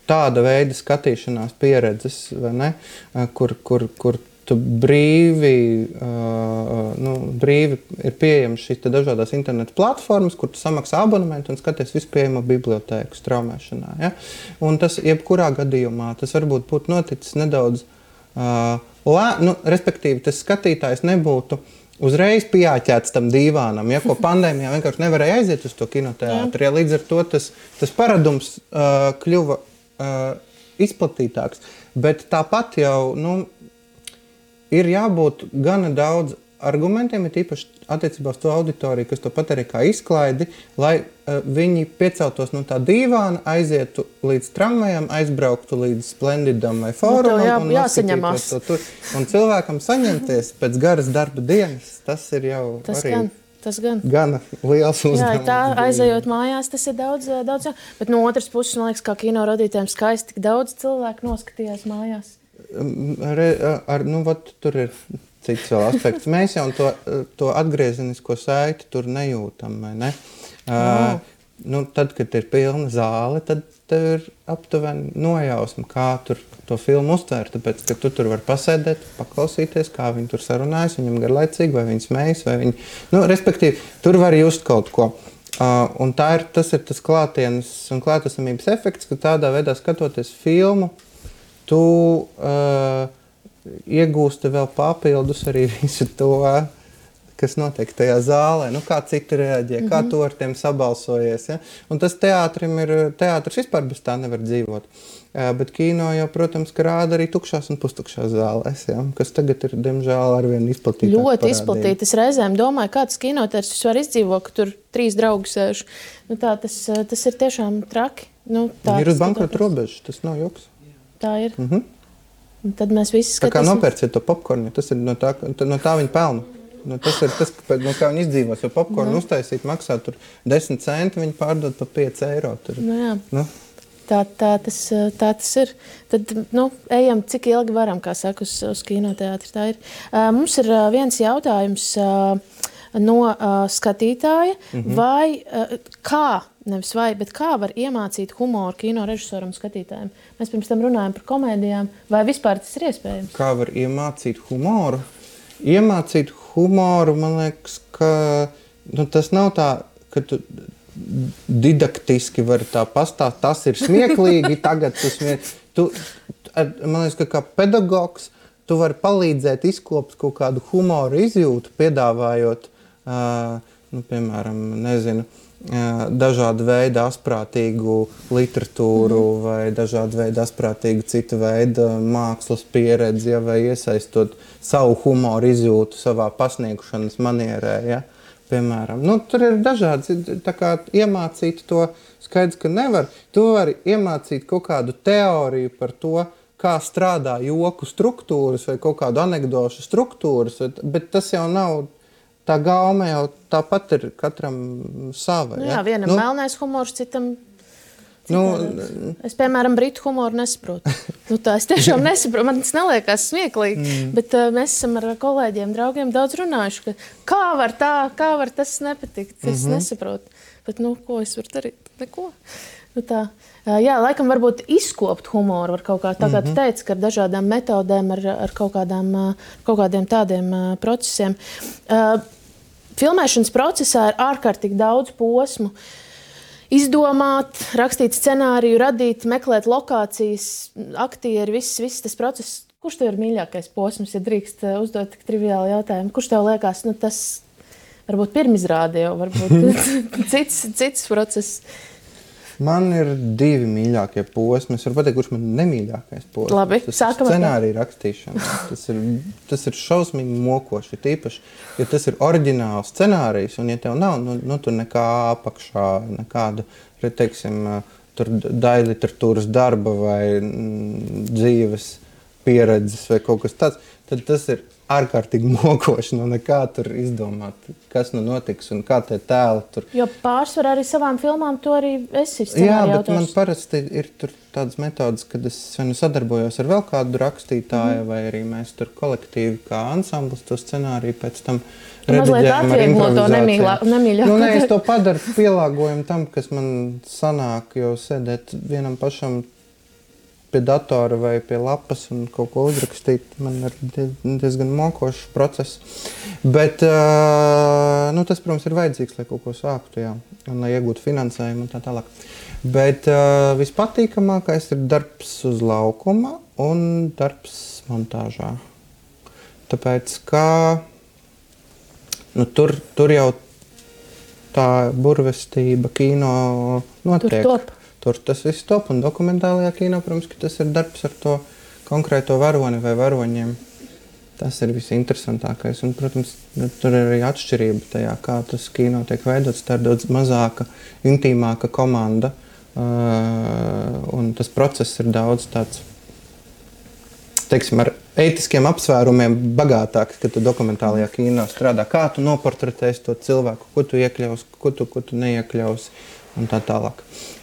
tāda veida skatīšanās pieredzes, vai ne, kur tu brīvi ir pieejams šīs dažādās internetu platformas, kur tu samaksā abonementu un skaties vispieejamo bibliotēku straumēšanā. Ja? Un tas jebkurā gadījumā, tas varbūt būtu noticis nedaudz, respektīvi tas skatītājs nebūtu uzreiz pieāķēts tam dīvānam, ja, ko pandēmijā vienkārši nevarēja aiziet uz to kinoteātri. Ja, līdz ar to tas paradums kļuva izplatītāks. Bet tāpat jau ir jābūt gana daudz argumentiem, ir īpaši attiecībā uz to auditoriju, kas to pat arī kā izklaidi, lai viņi pieceltos no tā dīvāna, aizietu līdz tramvajam, aizbrauktu līdz Splendidam vai Fórumam un jāsaņemās. To tur. Un cilvēkam saņemties pēc garas darba dienas, tas ir jau gana liels uzdevums. Jā, tā aizejot mājās, tas ir daudz. Bet no otras puses, man liekas, kā kino radītājiem skaisti, tik daudz cilvēku noskatījās mājās. Tur ir cits vēl aspekts. Mēs jau to atgriezenisko saiti tur nejūtam, vai ne? Tad, kad ir pilna zāle, tad tev ir aptuveni nojausma, kā tur to filmu uztvērt, tāpēc, ka tu tur var pasēdēt, paklausīties, kā viņi tur sarunājas, viņam garlaicīgi, vai viņi smējas, vai viņi... respektīvi, tur var just kaut ko. Un tas ir tas klātienes un klātesamības efekts, ka tādā veidā skatoties filmu, tu iegūsti vēl papildus arī visu to, kas notiek tajā zālē, kā citi reaģē, kā tu ar tiem sabalsojies. Ja? Un tas teātris vispār bez tā nevar dzīvot. Bet kino jau, protams, ka rāda arī tukšās un pustukšās zālēs, ja? Kas tagad ir, diemžēl, arvien izplatītāk ļoti parādība. Izplatīta. Es reizēm domāju, kā tas kinoteātris vispār izdzīvo, ka tur 3 draugi sēž. Tas ir tiešām traki. Ir uz bankrota robežas, tas nav joks. Tā ir. Un tad mēs visi skatīsim. Tā kā nopērciet to popkornu, tas ir no tā viņi pelna. Tas ir tas, no kā viņi izdzīvos, jo popkornu uztaisīt maksā tur 10 centi, viņi pārdod pa 5 eiro. Tur. Jā. Tā tas ir. Tad, ejam, cik ilgi varam, kā saka, uz kinoteātri. Tā ir. Mums ir viens jautājums no skatītāja, vai kā var iemācīt humoru kino režisoram un skatītājiem? Mēs pirms tam runājam par komēdijām, vai vispār tas ir iespējams? Kā var iemācīt humoru? Iemācīt humoru, man liekas, ka tas nav tā, ka tu didaktiski vari tā pastāst, tas ir smieklīgi, tagad tu smieklīgi. Man liekas, ka kā pedagogs tu vari palīdzēt izkopt kaut kādu humoru izjūtu, piedāvājot, piemēram, dažādu veidu asprātīgu literatūru vai dažādu veidu asprātīgu citu veidu mākslas pieredzi, vai iesaistot savu humoru izjūtu savā pasniegšanas manierē, ja? Piemēram. Tur ir dažādi, tā kā iemācīt to skaidrs, ka nevar. Tu vari iemācīt kaut kādu teoriju par to, kā strādā joku struktūras vai kaut kādu anekdošu struktūras, bet tas jau nav, tā gaume jau tāpat ir katram sava. Jā, vienam melnais humors, citam es, piemēram, britu humoru nesaprotu. Tā es tiešām nesaprotu, man tas neliekās smieklīgi, bet mēs esam ar kolēģiem, draugiem daudz runājuši, ka kā var tas nepatikt, es nesaprotu. Bet, ko es varu darīt? Neko. Tā. Jā, laikam varbūt izkopt humoru var kaut kā, tā kā tu teici, ka ar dažādām metodēm, ar kaut kādiem tādiem procesiem. Filmēšanas procesā ir ārkārtīgi daudz posmu. Izdomāt, rakstīt scenāriju, radīt, meklēt lokācijas, aktieri, viss tas process. Kurš tev ir mīļākais posms, ja drīkst uzdot tik triviālu jautājumu? Kurš tev liekas, tas varbūt pirmizrāde jau, varbūt cits process? Man ir 2 mīļākie posmi. Es varu pateikt, kurš man nemīļākais posms. Labi, tas ir scenārija rakstīšana. Tas ir šausmīgi mokoši. Tīpaši, ja tas ir oriģināls scenārijs, un ja tev nav, tur nekā apakšā, nekāda, teiksim, tur daļliteratūras darba vai dzīves pieredzes vai kaut kas tāds, tad tas ir ārkārtīgi mokoši, nekā tur izdomāt, kas notiks un kā tie tēli tur. Jo pārsvarā arī savām filmām to arī esi scenāriju Jā, bet autors. Man parasti ir tur tādas metodas, kad es sadarbojos ar vēl kādu rakstītāju, vai arī mēs tur kolektīvi kā ansamblis to scenāriju pēc tam rediģējam ar improvizācijām. Es to padaru pielāgojumu tam, kas man sanāk, jo sēdēt vienam pašam pie datora vai pie lapas un kaut ko uzrakstīt, man ir diezgan mokošs process. Bet tas, protams, ir vajadzīgs, lai kaut ko sāktu, jā, un lai iegūtu finansējumu un tā tālāk. Bet vispatīkamākais ir darbs uz laukuma un darbs montāžā. Tāpēc, ka tur jau tā burvestība kino notiek. Tur top. Tur tas viss top, un dokumentālajā kino, protams, ka tas ir darbs ar to konkrēto varoni vai varoņiem. Tas ir visinteresantākais, un, protams, tur ir arī atšķirība tajā, kā tas kino tiek veidots. Tā ir daudz mazāka, intīmāka komanda, un tas process ir daudz tāds, teiksim, ar ētiskiem apsvērumiem bagātāks, kad tu dokumentālajā kino strādā. Kā tu noportretēsi to cilvēku, ko tu iekļausi, ko tu neiekļausi. Un tā tālāk.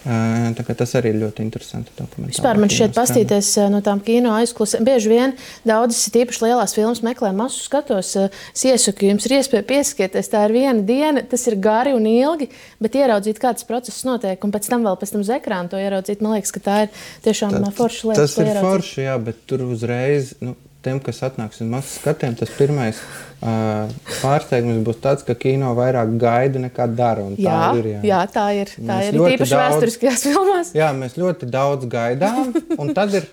Tā kā tas arī ir ļoti interesanti dokumentāli. Vispār man šķiet pastīties no tām kino aizklusēm. Bieži vien daudzas tīpaši lielās filmas meklē masu skatos. Es iesaku, jums ir iespēja pieskieties. Tā ir viena diena, tas ir gari un ilgi, bet ieraudzīt, kā tas process notiek, un pēc tam uz ekrāna to ieraudzīt. Man liekas, ka tā ir tiešām forša lieta. Tas ir forši, jā, bet tur uzreiz, tiem, kas atnāks uz masu skatiem, tas pirmais pārsteigums būs tāds, ka kino vairāk gaida nekā dara. Jā, tā ir. Tā ir tīpaši vēsturiskajās filmās. Jā, mēs ļoti daudz gaidām, un tad ir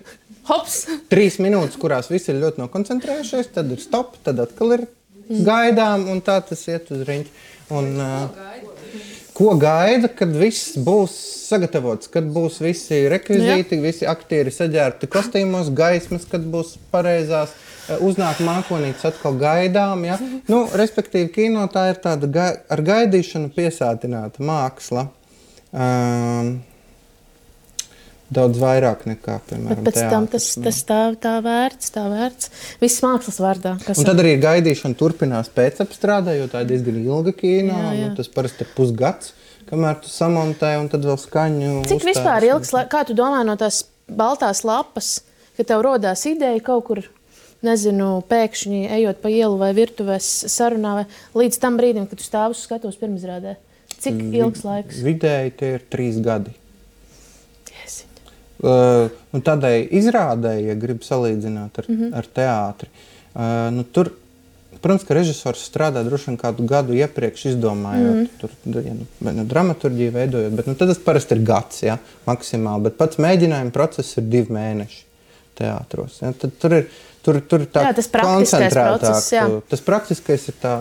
Hops! 3 minūtes, kurās visi ir ļoti nokoncentrējušies, tad ir stop, tad atkal ir gaidām, un tā tas iet uz riņķi. Ko gaida, kad viss būs sagatavots, kad būs visi rekvizīti, visi aktieri saģērbti kostīmos, gaismas, kad būs pareizās, uznāk mākonītes, atkal gaidām. Ja? Respektīvi, kino tā ir tāda ar gaidīšanu piesātināta māksla. Daudz vairāk nekā, piemēram, bet pēc tam tas tā vērts. Viss mākslas vārdā. Un tad arī gaidīšana turpinās pēcapstrādē, jo tā ir diezgan ilga kino. Tas parasti ir pusgads, kamēr tu samontē un tad vēl skaņu uzstājas. Cik vispār ilgs, kā tu domā no tās baltās lapas, ka tev rodās ideja kaut kur, nezinu, pēkšņi ejot pa ielu vai virtuvēs sarunā, vai līdz tam brīdim, kad tu stāv uz skatuves pirmizrādē? Cik ilgs laiks? Vidēji tie ir 3 gadi. Tādai izrādēji, ja grib salīdzināt ar teātri, tur, protams, ka režisors strādā droši vien kādu gadu iepriekš izdomājot, tur, dramaturģiju veidojot, bet tad tas parasti ir gads, ja, maksimāli, bet pats mēģinājuma process ir 2 mēneši teātros. Ja, tad tur tā koncentrētāk. Tas praktiskais ir tā,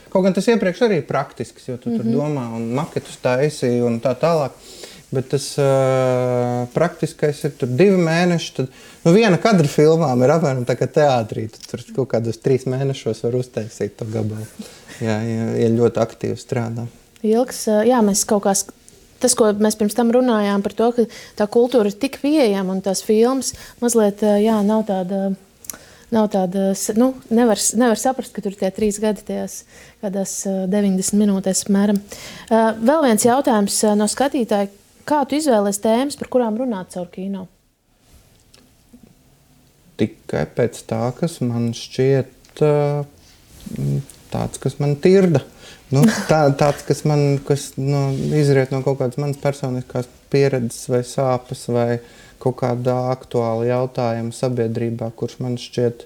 kaut gan tas iepriekš arī ir praktisks, jo tu tur domā un maketus taisi un tā tālāk. Bet tas praktiskais ir tur 2 mēneši. Tad, viena kadra filmām ir apmēram tā kā teātrī. Tur kaut kādos 3 mēnešos var uztaisīt to gabalu. Ja ļoti aktīvi strādā. Ilgs, jā, mēs kaut kā, tas, ko mēs pirms tam runājām par to, ka tā kultūra ir tik pieejama un tās filmas mazliet, jā, nav tāda, nevar saprast, ka tur tie 3 gadi tajās kādās 90 minūtēs apmēram. Vēl viens jautājums no skatītāja. Kā tu izvēlies tēmas, par kurām runāt caur kino? Tikai pēc tā, kas man šķiet tāds, kas man tirda. Tāds, kas izriet no kaut kādas manas personiskās pieredzes vai sāpes vai kaut kādā aktuāla jautājuma sabiedrībā, kurš man šķiet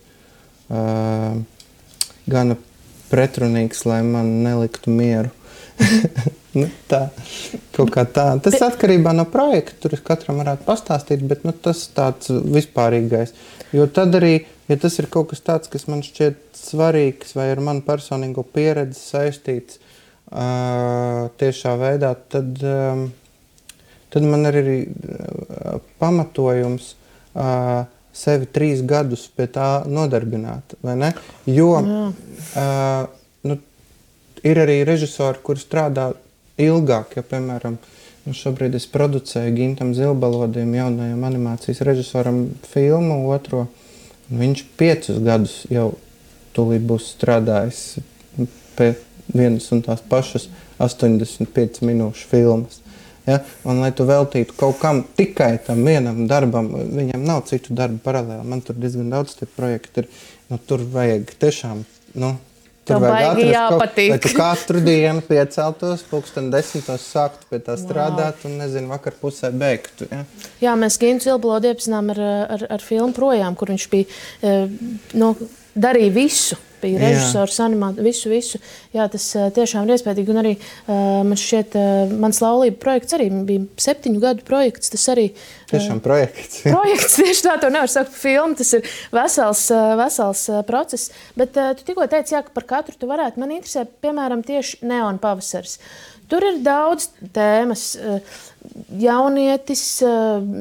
gana pretrunīgs, lai man neliktu mieru. Nu, tā, kaut kā tā. Tas atkarībā no projekta, tur katram varētu pastāstīt, bet tas tāds vispārīgais. Jo tad arī, ja tas ir kaut kas tāds, kas man šķiet svarīgs vai ar manu personīgo pieredzi saistīts tiešā veidā, tad man ir arī pamatojums sevi 3 gadus pie tā nodarbināt, vai ne? Jo ir arī režisori, kuri strādā ilgāk, ja, piemēram, šobrīd es producēju Gintam Zilbalodim, jaunajam animācijas režisoram, filmu otro, un viņš 5 gadus jau tūlīt būs strādājis pie vienas un tās pašas 85 minūšu filmas. Ja? Un, lai tu veltītu kaut kam tikai tam vienam darbam, viņam nav citu darbu paralēli. Man tur diezgan daudz tie projekti ir, tur vajag tiešām, tur vajag atrast, lai tu katru dienu pieceltos, 10:00 sāktu pie tā strādāt un, vakar pusē beigtu. Ja? Jā, mēs Gintu Zilbalodu iepazinām ar filmu Projām, kur viņš bija, darīja visu. Bija režisors, animācija, visu. Jā, tas tiešām ir iespējīgi. Un arī man šķiet, mans laulība projekts arī bija 7 gadu projekts. Tas arī tiešām projekts. Projekts, tieši tā, to nevar saukt par filmu. Tas ir vesels process. Bet tu tikko teici, jā, ka par katru tu varētu. Man interesē, piemēram, tieši Neona pavasaris. Tur ir daudz tēmas. Jaunietis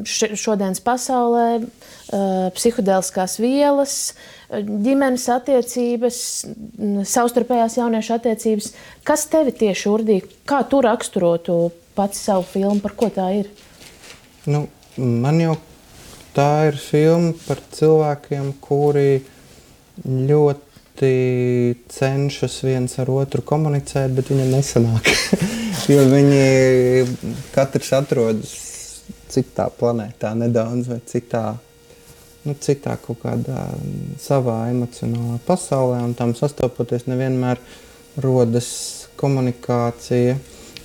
šodienas pasaulē, psihodēliskās vielas, ģimenes attiecības, savstarpējās jauniešu attiecības. Kas tevi tieši urdīja? Kā tu raksturotu pats savu filmu? Par ko tā ir? Man jau tā ir filma par cilvēkiem, kuri ļoti cenšas viens ar otru komunicēt, bet viņam nesanāk. Jo viņi katrs atrodas citā planētā nedaudz vai citā kaut kādā savā emocionālā pasaulē, un tam sastopoties nevienmēr rodas komunikācija.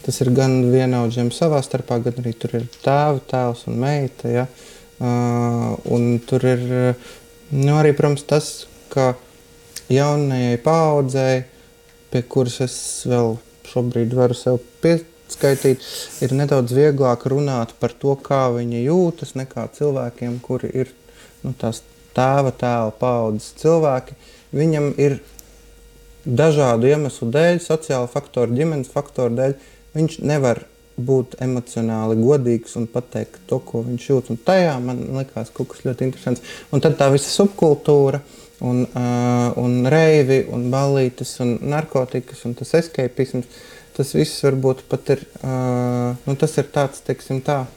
Tas ir gan vienaudžiem savā starpā, gan arī tur ir tēvs un meita, ja? Un tur ir arī, protams, tas, ka jaunajai paaudzei, pie kuras es vēl šobrīd varu sev pieskaitīt, ir nedaudz vieglāk runāt par to, kā viņi jūtas, nekā cilvēkiem, kuri ir tās tēva paaudzes cilvēki. Viņam ir dažādu iemeslu dēļ, sociāla faktoru, ģimenes faktoru dēļ, viņš nevar būt emocionāli godīgs un pateikt to, ko viņš jūt. Un tajā man likās kaut kas ļoti interesants. Un tad tā visa subkultūra un reivi un ballītes un narkotikas un tas escapisms, tas viss varbūt pat ir, tas ir tāds, teiksim tā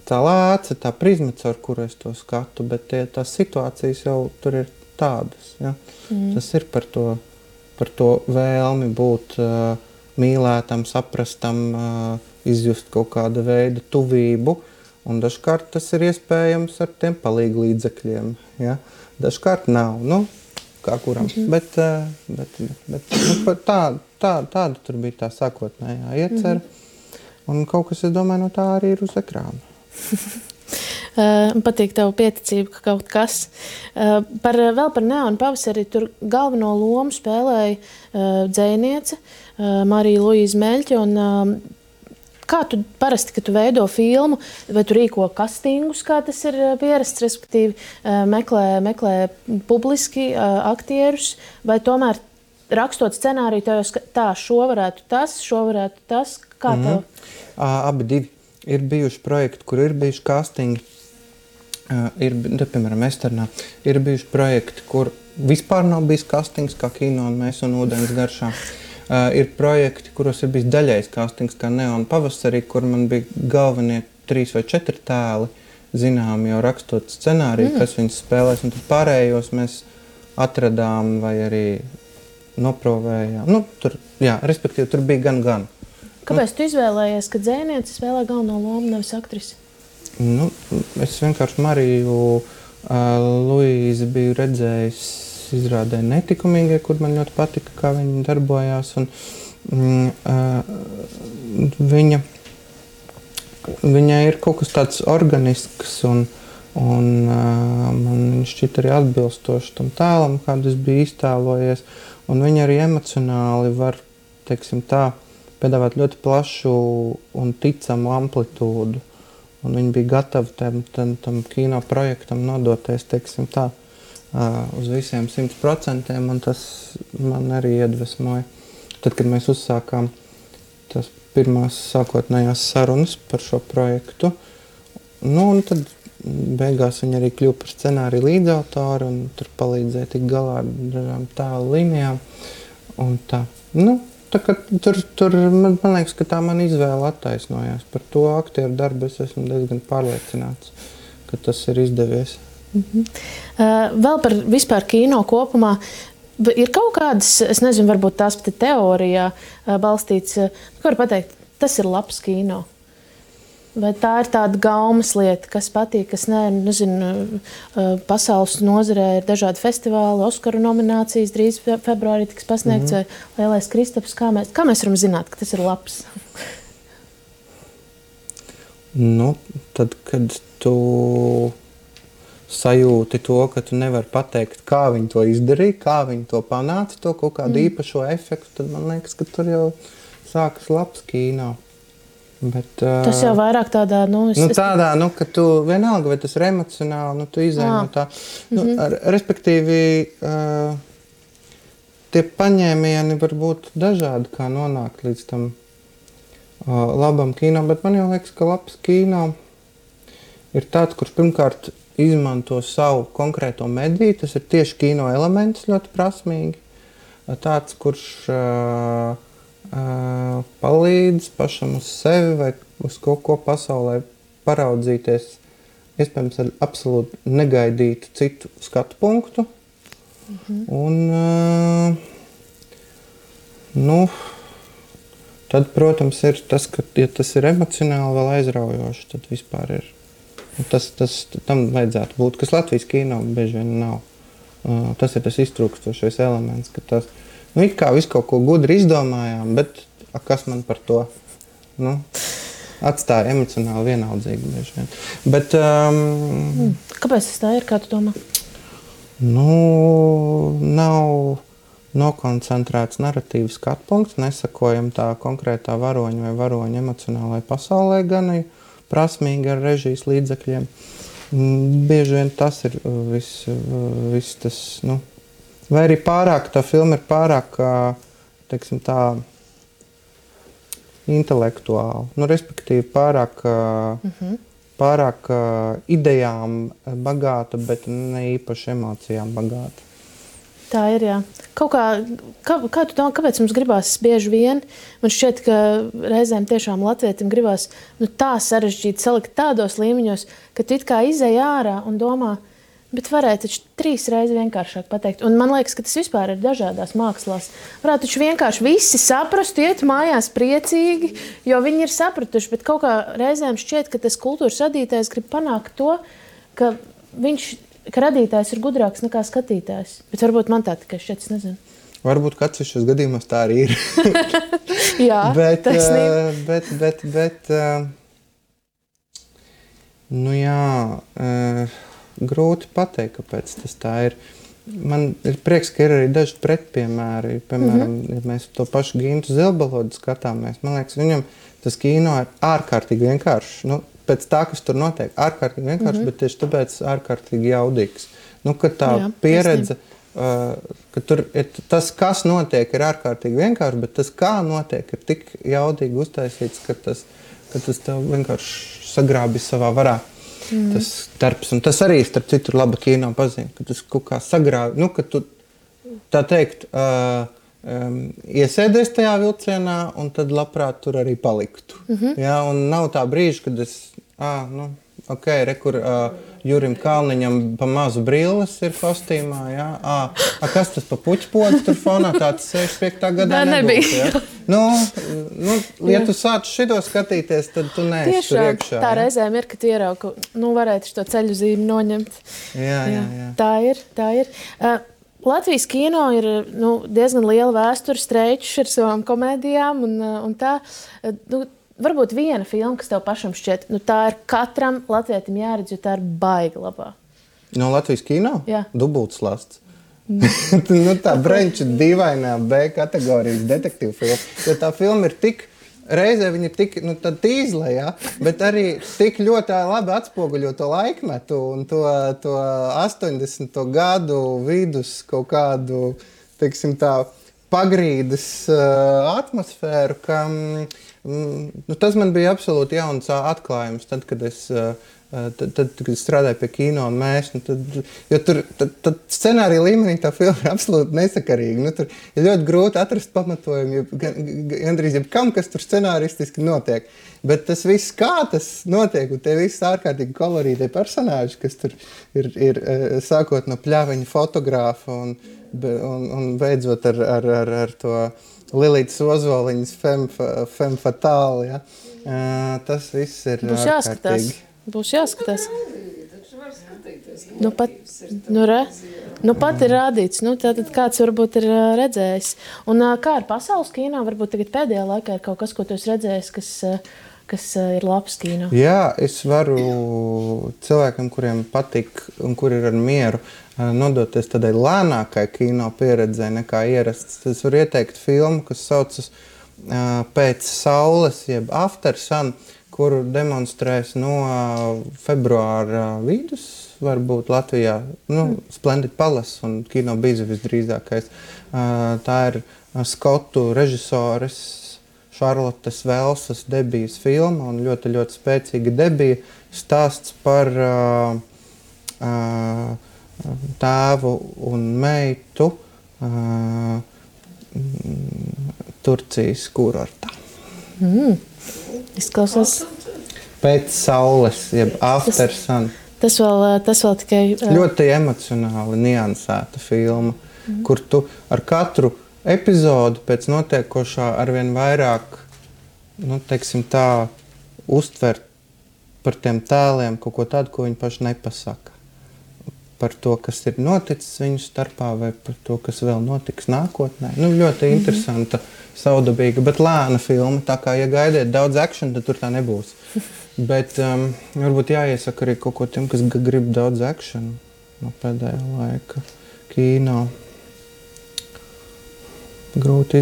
lāce, tā prizma, caur kuru es to skatu, bet tās situācijas jau tur ir tādas. Ja? Tas ir par to vēlmi būt mīlētam, saprastam, izjust kaut kāda veida tuvību, un dažkārt tas ir iespējams ar tiem palīgu līdzekļiem. Ja? Dažkārt nav, kā kuram, bet tāda tur bija tā sākotnējā iecer, un kaut kas, es domāju, no tā arī ir uz ekrāna. Patīk tavu pieticību, ka kaut kas. Vēl par Neonu pavasari tur galveno lomu spēlēja dzejniece Marija Luīza Meļķe. Kā tu parasti, kad tu veido filmu, vai tu rīko kastingus, kā tas ir pierasts, respektīvi meklē publiski aktierus, vai tomēr rakstot scenāriju, tā šo varētu tas, kā tev? Abi divi. Ir bijuši projekti, kur ir bijuši castingi, piemēram, Esternā. Ir bijuši projekti, kur vispār nav bijis castings, kā Kino un Mēs un ūdens garšā. Ir projekti, kuros ir bijis daļais castings, kā Neona pavasarī, kur man bija galvenie 3 vai 4 tēli, zinām jau rakstot scenāriju, kas viņus spēlēs, un tad pārējos mēs atradām vai arī noprovējām. Respektīvi, tur bija gan. Kāpēc tu izvēlējies, ka dzejniece spēlē galveno lomu, nevis aktrisi? Es vienkārši Mariju Luīzi biju redzējis izrādē Netikumīgie, kur man ļoti patika, kā viņa darbojās. Un, viņa viņai ir kaut kas tāds organisks un man šķiet arī atbilstoši tam tēlam, kādu es biju iztēlojies. Un viņa arī emocionāli var, teiksim tā, piedāvāt ļoti plašu un ticamu amplitūdu. Un viņi bija gatavi tam kino projektam nodoties, teiksim tā, uz visiem 100%, un tas man arī iedvesmoja. Tad, kad mēs uzsākām tās pirmās sākotnējās sarunas par šo projektu, un tad beigās viņa arī kļuva par scenāriju līdzautoru un tur palīdzēja tikt galā ar dažām tēlu līnijām. Un tā. Tā kā tur man liekas, ka tā man izvēle attaisnojās. Par to aktieru darbu es esmu diezgan pārliecināts, ka tas ir izdevies. Vēl par vispār kino kopumā. Ir kaut kādas, es nezinu, varbūt tās pat teorijā balstīts, ko var pateikt, tas ir labs kino. Vai tā ir tāda gaumas lieta, kas patīk, kas nē, nezinu, pasaules nozarē ir dažādi festivāli, Oskaru nominācijas, drīz februārī tiks pasniegts, vai Lielais Kristaps, kā mēs varam zināt, ka tas ir labs? Tad, kad tu sajūti to, ka tu nevari pateikt, kā viņi to izdarīja, kā viņi to panāca, to kaut kādu īpašo efektu, tad man liekas, ka tur jau sākas labs kino. Bet, tas jau vairāk tādā, tādā, ka tu vienalga, vai tas ir emocionāli, tu izēj no tā. Respektīvi, tie paņēmieni var būt dažādi, kā nonākt līdz tam labam kino, bet man jau liekas, ka labs kino ir tāds, kurš pirmkārt izmanto savu konkrēto mediju, tas ir tieši kino elements ļoti prasmīgi. Tāds, kurš palīdz pašam uz sevi vai uz kaut ko pasaulē paraudzīties, iespējams ar absolūti negaidītu citu skatu punktu. Un, tad, protams, ir tas, ka, ja tas ir emocionāli vēl aizraujoši, tad vispār ir. Tam vajadzētu būt, kas Latvijas kino bieži vien nav. Tas ir tas iztrūkstošais elements, ka tas it kā visu kaut ko gudri izdomājām, bet kas man par to atstāja emocionāli vienaldzīgi bieži vien. Bet, kāpēc tas tā ir, kā tu domā? Nav nokoncentrēts narratīvas skatpunkts, nesakojam tā konkrētā varoņa vai varoņa emocionālai pasaulē, gan prasmīgi ar režijas līdzekļiem. Bieži vien tas ir viss tas, vai arī pārāk, tā filma ir pārāk, teiksim tā, intelektuāla. Respektīvi pārāk idejām bagāta, bet ne īpaši emocijām bagāta. Tā ir, jā. Kā tu domā, kāpēc mums gribās bieži vien? Man šķiet, ka reizēm tiešām latvietim gribās tā sarežģīt, salikt tādos līmeņos, ka tu it kā izej ārā un domā, bet varētu taču 3 reizes vienkāršāk pateikt. Un man liekas, ka tas vispār ir dažādās mākslās. Varētu taču vienkārši visi saprast, iet mājās priecīgi, jo viņi ir sapratuši, bet kaut kā reizēm šķiet, ka tas kultūras radītājs grib panākt to, ka radītājs ir gudrāks nekā skatītājs. Bet varbūt man tā tikai šķiet, es nezinu. Varbūt kāds šos gadījumos tā arī ir. Jā, taisnība. Grūti pateikt, kāpēc tas tā ir. Man ir prieks, ka ir arī daži pretpiemēri. Piemēram, ja mēs to pašu Gintu Zilbalodu skatāmies, man liekas, viņam tas kino ir ārkārtīgi vienkāršs. Pēc tā, kas tur notiek, ārkārtīgi vienkārši, bet tieši tāpēc ārkārtīgi jaudīgs. Kad tā pieredze, ka tur ir tas, kas notiek, ir ārkārtīgi vienkārši, bet tas, kā notiek, ir tik jaudīgi uztaisīts, ka tas tev vienkārši sagrābi savā varā. Tas darbs, un tas arī, starp citu, ir laba kino pazīme, ka tas kaut kā sagrāvi, ka tu, tā teikt, iesēdies tajā vilcienā, un tad labprāt tur arī paliktu. Ja, un nav tā brīža, kad es, kur Jurim Kalniņam pa mazu brilles ir kostīmā, ja? Kas tas pa puķpodu tur fonā, tāds 65. gadā nebūtu, ja? Ja tu sāc šito skatīties, tad tu neesi tur iekšā. Tā reizēm ir, ka tu ieraugi, varētu šo ceļu zīmi noņemt. Jā. Tā ir. Latvijas kino ir diezgan liela vēsture, streičs ar savām komēdijām un tā. varbūt viena filma, kas tev pašam šķiet, nu tā ir katram latvietim jāredz, jo tā ir baigi labā. No Latvijas kino? Jā. Dubultslasts. Nu, tā Brenča dīvainā B kategorijas detektīvu filma. Jo tā filma ir tik, reizē viņa ir tik, nu, tad tīzla, ja? Bet arī tik ļoti labi atspoguļo to laikmetu un to 80. gadu vidus kaut kādu, teiksim tā, pagrīdes atmosfēru, ka nu, tas man bija absolūti jauns atklājums, tad, kad es strādāju pie kino un mēs, nu, jo tur tad scenārija līmenī tā filma ir absolūti nesakarīga. Nu, tur ir ļoti grūti atrast pamatojumu, gandrīz jebkam, kas tur scenāristiski notiek. Bet tas viss, kā tas notiek, un tie visi ārkārtīgi kolorītie personāži, kas tur ir sākot no pļaviņa fotogrāfa un beidzot ar to Lilītas Ozoliņas femme fatale, ja? Tas viss ir ārkārtīgi. Būs jāskatās. Nu pat ir rādīts. Nu, tātad kāds varbūt ir redzējis. Un kā ar pasaules kino? Varbūt tagad pēdējā laikā ir kaut kas, ko tu esi redzējis, kas ir labs kino. Jā, es varu cilvēkiem, kuriem patīk un kuri ir ar mieru, nodoties tādai lēnākai kino pieredzei nekā ierasts. Es varu ieteikt filmu, kas saucas Pēc saules, jeb After Sun, kuru demonstrēs no februāra vidus, varbūt Latvijā, Splendid Palace un Kino Biza visdrīzākais. Tā ir skotu režisores Šarlotes Velsas debijas filma un ļoti, ļoti spēcīga debija. Stāsts par tēvu un meitu Turcijas kurortā. Izklausās. Pēc saules, jeb After Sun. Tas vēl tikai... Ļoti emocionāli niansēta filma, kur tu ar katru epizodu pēc notiekošā arvien vairāk, nu, teiksim tā, uztver par tiem tēliem kaut ko tādu, ko viņi paši nepasaka. Par to, kas ir noticis viņu starpā vai par to, kas vēl notiks nākotnē. Nu, ļoti interesanta, saudabīga, bet lēna filma. Tā kā, ja gaidiet daudz action, tad tur tā nebūs. Bet varbūt jāiesaka arī kaut ko tiem, kas grib daudz action no pēdējā laika kino. Grūti,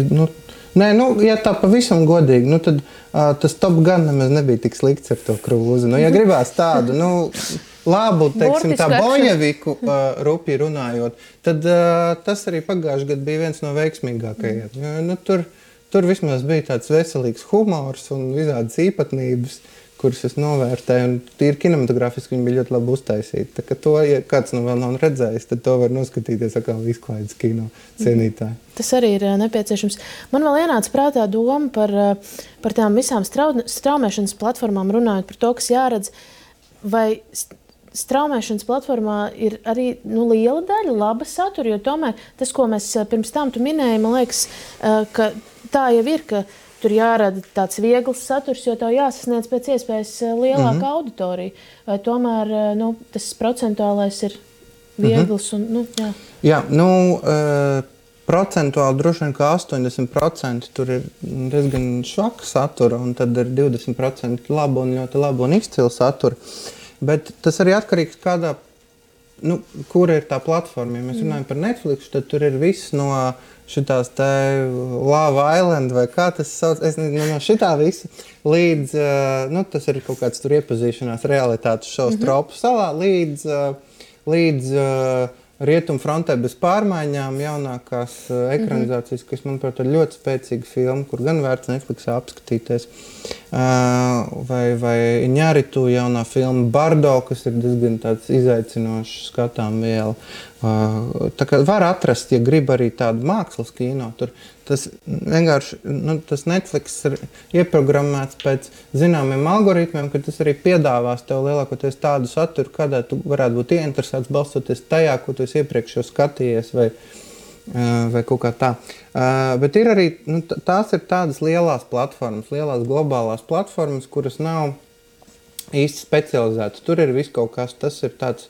ja tā pavisam godīgi, tad tas Top Gun nemaz nebija tik slikts ar to Krūzi. Ja gribās tādu, labu, teiksim, tā bojeviku rupi runājot, tad tas arī pagājuši gadu bija viens no veiksmīgākajiem. Tur vismaz bija tāds veselīgs humors un visādas īpatnības, kuras es novērtēju, un tīri kinematografiski viņi bija ļoti labi uztaisīti. Tā kā to, ja kāds vēl nav redzējis, tad to var noskatīties atkal izklaides kino cienītāji. Tas arī ir nepieciešams. Man vēl ienāca prātā doma par tām visām straumēšanas platformām runājot par to, kas jāredz, vai straumēšanas platformā ir arī liela daļa laba satura, jo tomēr tas, ko mēs pirms tam tu minēji, man liekas, ka tā jau ir, ka tur jārada tāds viegls saturs, jo tev jāsasniedz pēc iespējas lielāka auditorija. Vai tomēr tas procentuālais ir viegls? Un, jā. Jā, procentuāli droši vien kā 80% tur ir diezgan švaka satura, un tad ir 20% laba un ļoti laba un izcila satura. Bet tas arī atkarīgs kādā, kura ir tā platforma. Ja mēs runājam par Netflix, tad tur ir viss no šitās te Love Island vai kā tas sauc, es nezinu, no šitā visa līdz, tas ir kaut kāds tur iepazīšanās realitātes šovs Tropu salā, līdz Rietumu frontē bez pārmaiņām, jaunākās ekranizācijas, kas, manuprāt, ir ļoti spēcīga filma, kur gan vērts Netflixā apskatīties. Vai Iñárritu jaunā filma Bardo, kas ir diezgan tāds izaicinošs skatām viela. Tā kā var atrast, ja grib arī tādu mākslas kino. Tur tas vienkārši, tas Netflix ir ieprogrammēts pēc zināmiem algoritmiem, ka tas arī piedāvās tev lielākoties tādu saturu, kādā tu varētu būt ieinteresēts balstoties tajā, ko tu esi iepriekš jau skatījies vai kaut kā tā. Bet ir arī, tās ir tādas lielās platformas, lielās globālās platformas, kuras nav īsti specializētas. Tur ir viss kaut kas, tas ir tāds,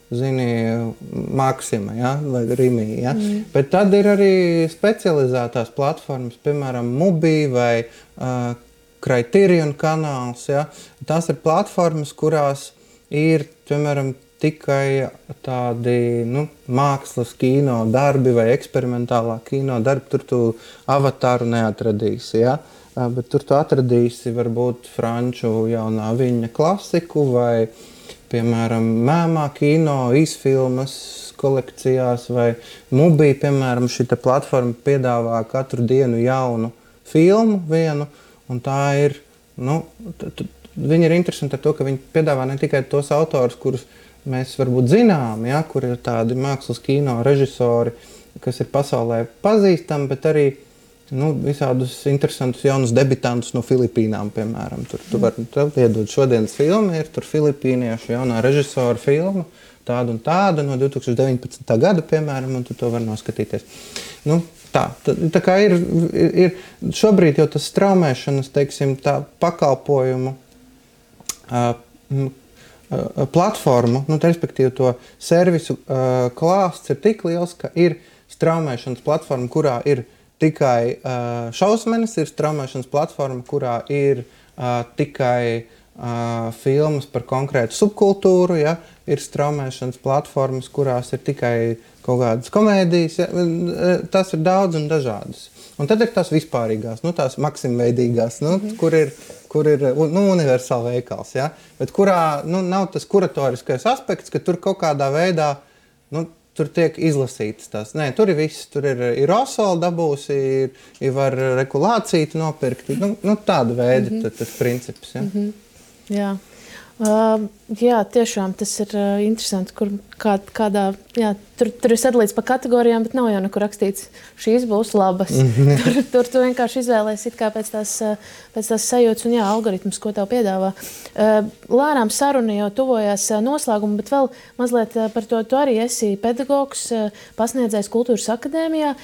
Maxima, ja, vai Rimi, ja. Bet tad ir arī specializētās platformas, piemēram, Mubi vai Criterion kanāls, ja? Tās ir platformas, kurās ir, piemēram, tikai tādi mākslas kino darbi vai eksperimentālā kino darbi. Tur tu Avatāru neatradīsi, ja? Bet tur tu atradīsi varbūt franču jaunā viņa klasiku vai, piemēram, mēmā kino, īsfilmas kolekcijās vai Mubi, piemēram, šita platforma piedāvā katru dienu jaunu filmu vienu, un tā ir, viņi ir interesanti ar to, ka viņi piedāvā ne tikai tos autorus, kurus mēs varbūt zinām, ja, kur ir tādi mākslas kino režisori, kas ir pasaulē pazīstami, bet arī visādus interesantus jaunus debitantus no Filipīnām, piemēram. Tu vari iedot šodienas filmu, ir tur filipīniešu jaunā režisora filma, tāda un tāda no 2019. Gada, piemēram, un tu to vari noskatīties. Tā kā ir šobrīd jau tas straumēšanas, teiksim, tā pakalpojumu platformu, respektīvi to servisu klāsts ir tik liels, ka ir straumēšanas platforma, kurā ir tikai šausmenes, ir straumēšanas platforma, kurā ir tikai filmas par konkrētu subkultūru, ja? Ir straumēšanas platformas, kurās ir tikai kaut kādas komēdijas, ja? Tas ir daudz un dažādas. Un tad ir tās vispārīgās, tās maksimveidīgās, kur ir universāla veikals, ja? Bet kurā nav tas kuratoriskais aspekts, ka tur kaut kādā veidā tur tiek izlasītas tās. Nē, tur ir viss, tur ir osola dabūsi, ir var regulāciju nopirkt, tāda veida tas princips. Ja? Jā, tiešām tas ir interesanti, kur kādā, tur ir sadalīts pa kategorijām, bet nav jau nekur rakstīts, šīs būs labas. Tur tu vienkārši izvēlēs it kā pēc tās sajūtas un algoritmus, ko tev piedāvā. Lēnām saruna jau tuvojās noslēgumu, bet vēl mazliet par to, tu arī esi pedagogs, pasniedzējs Kultūras akadēmijā.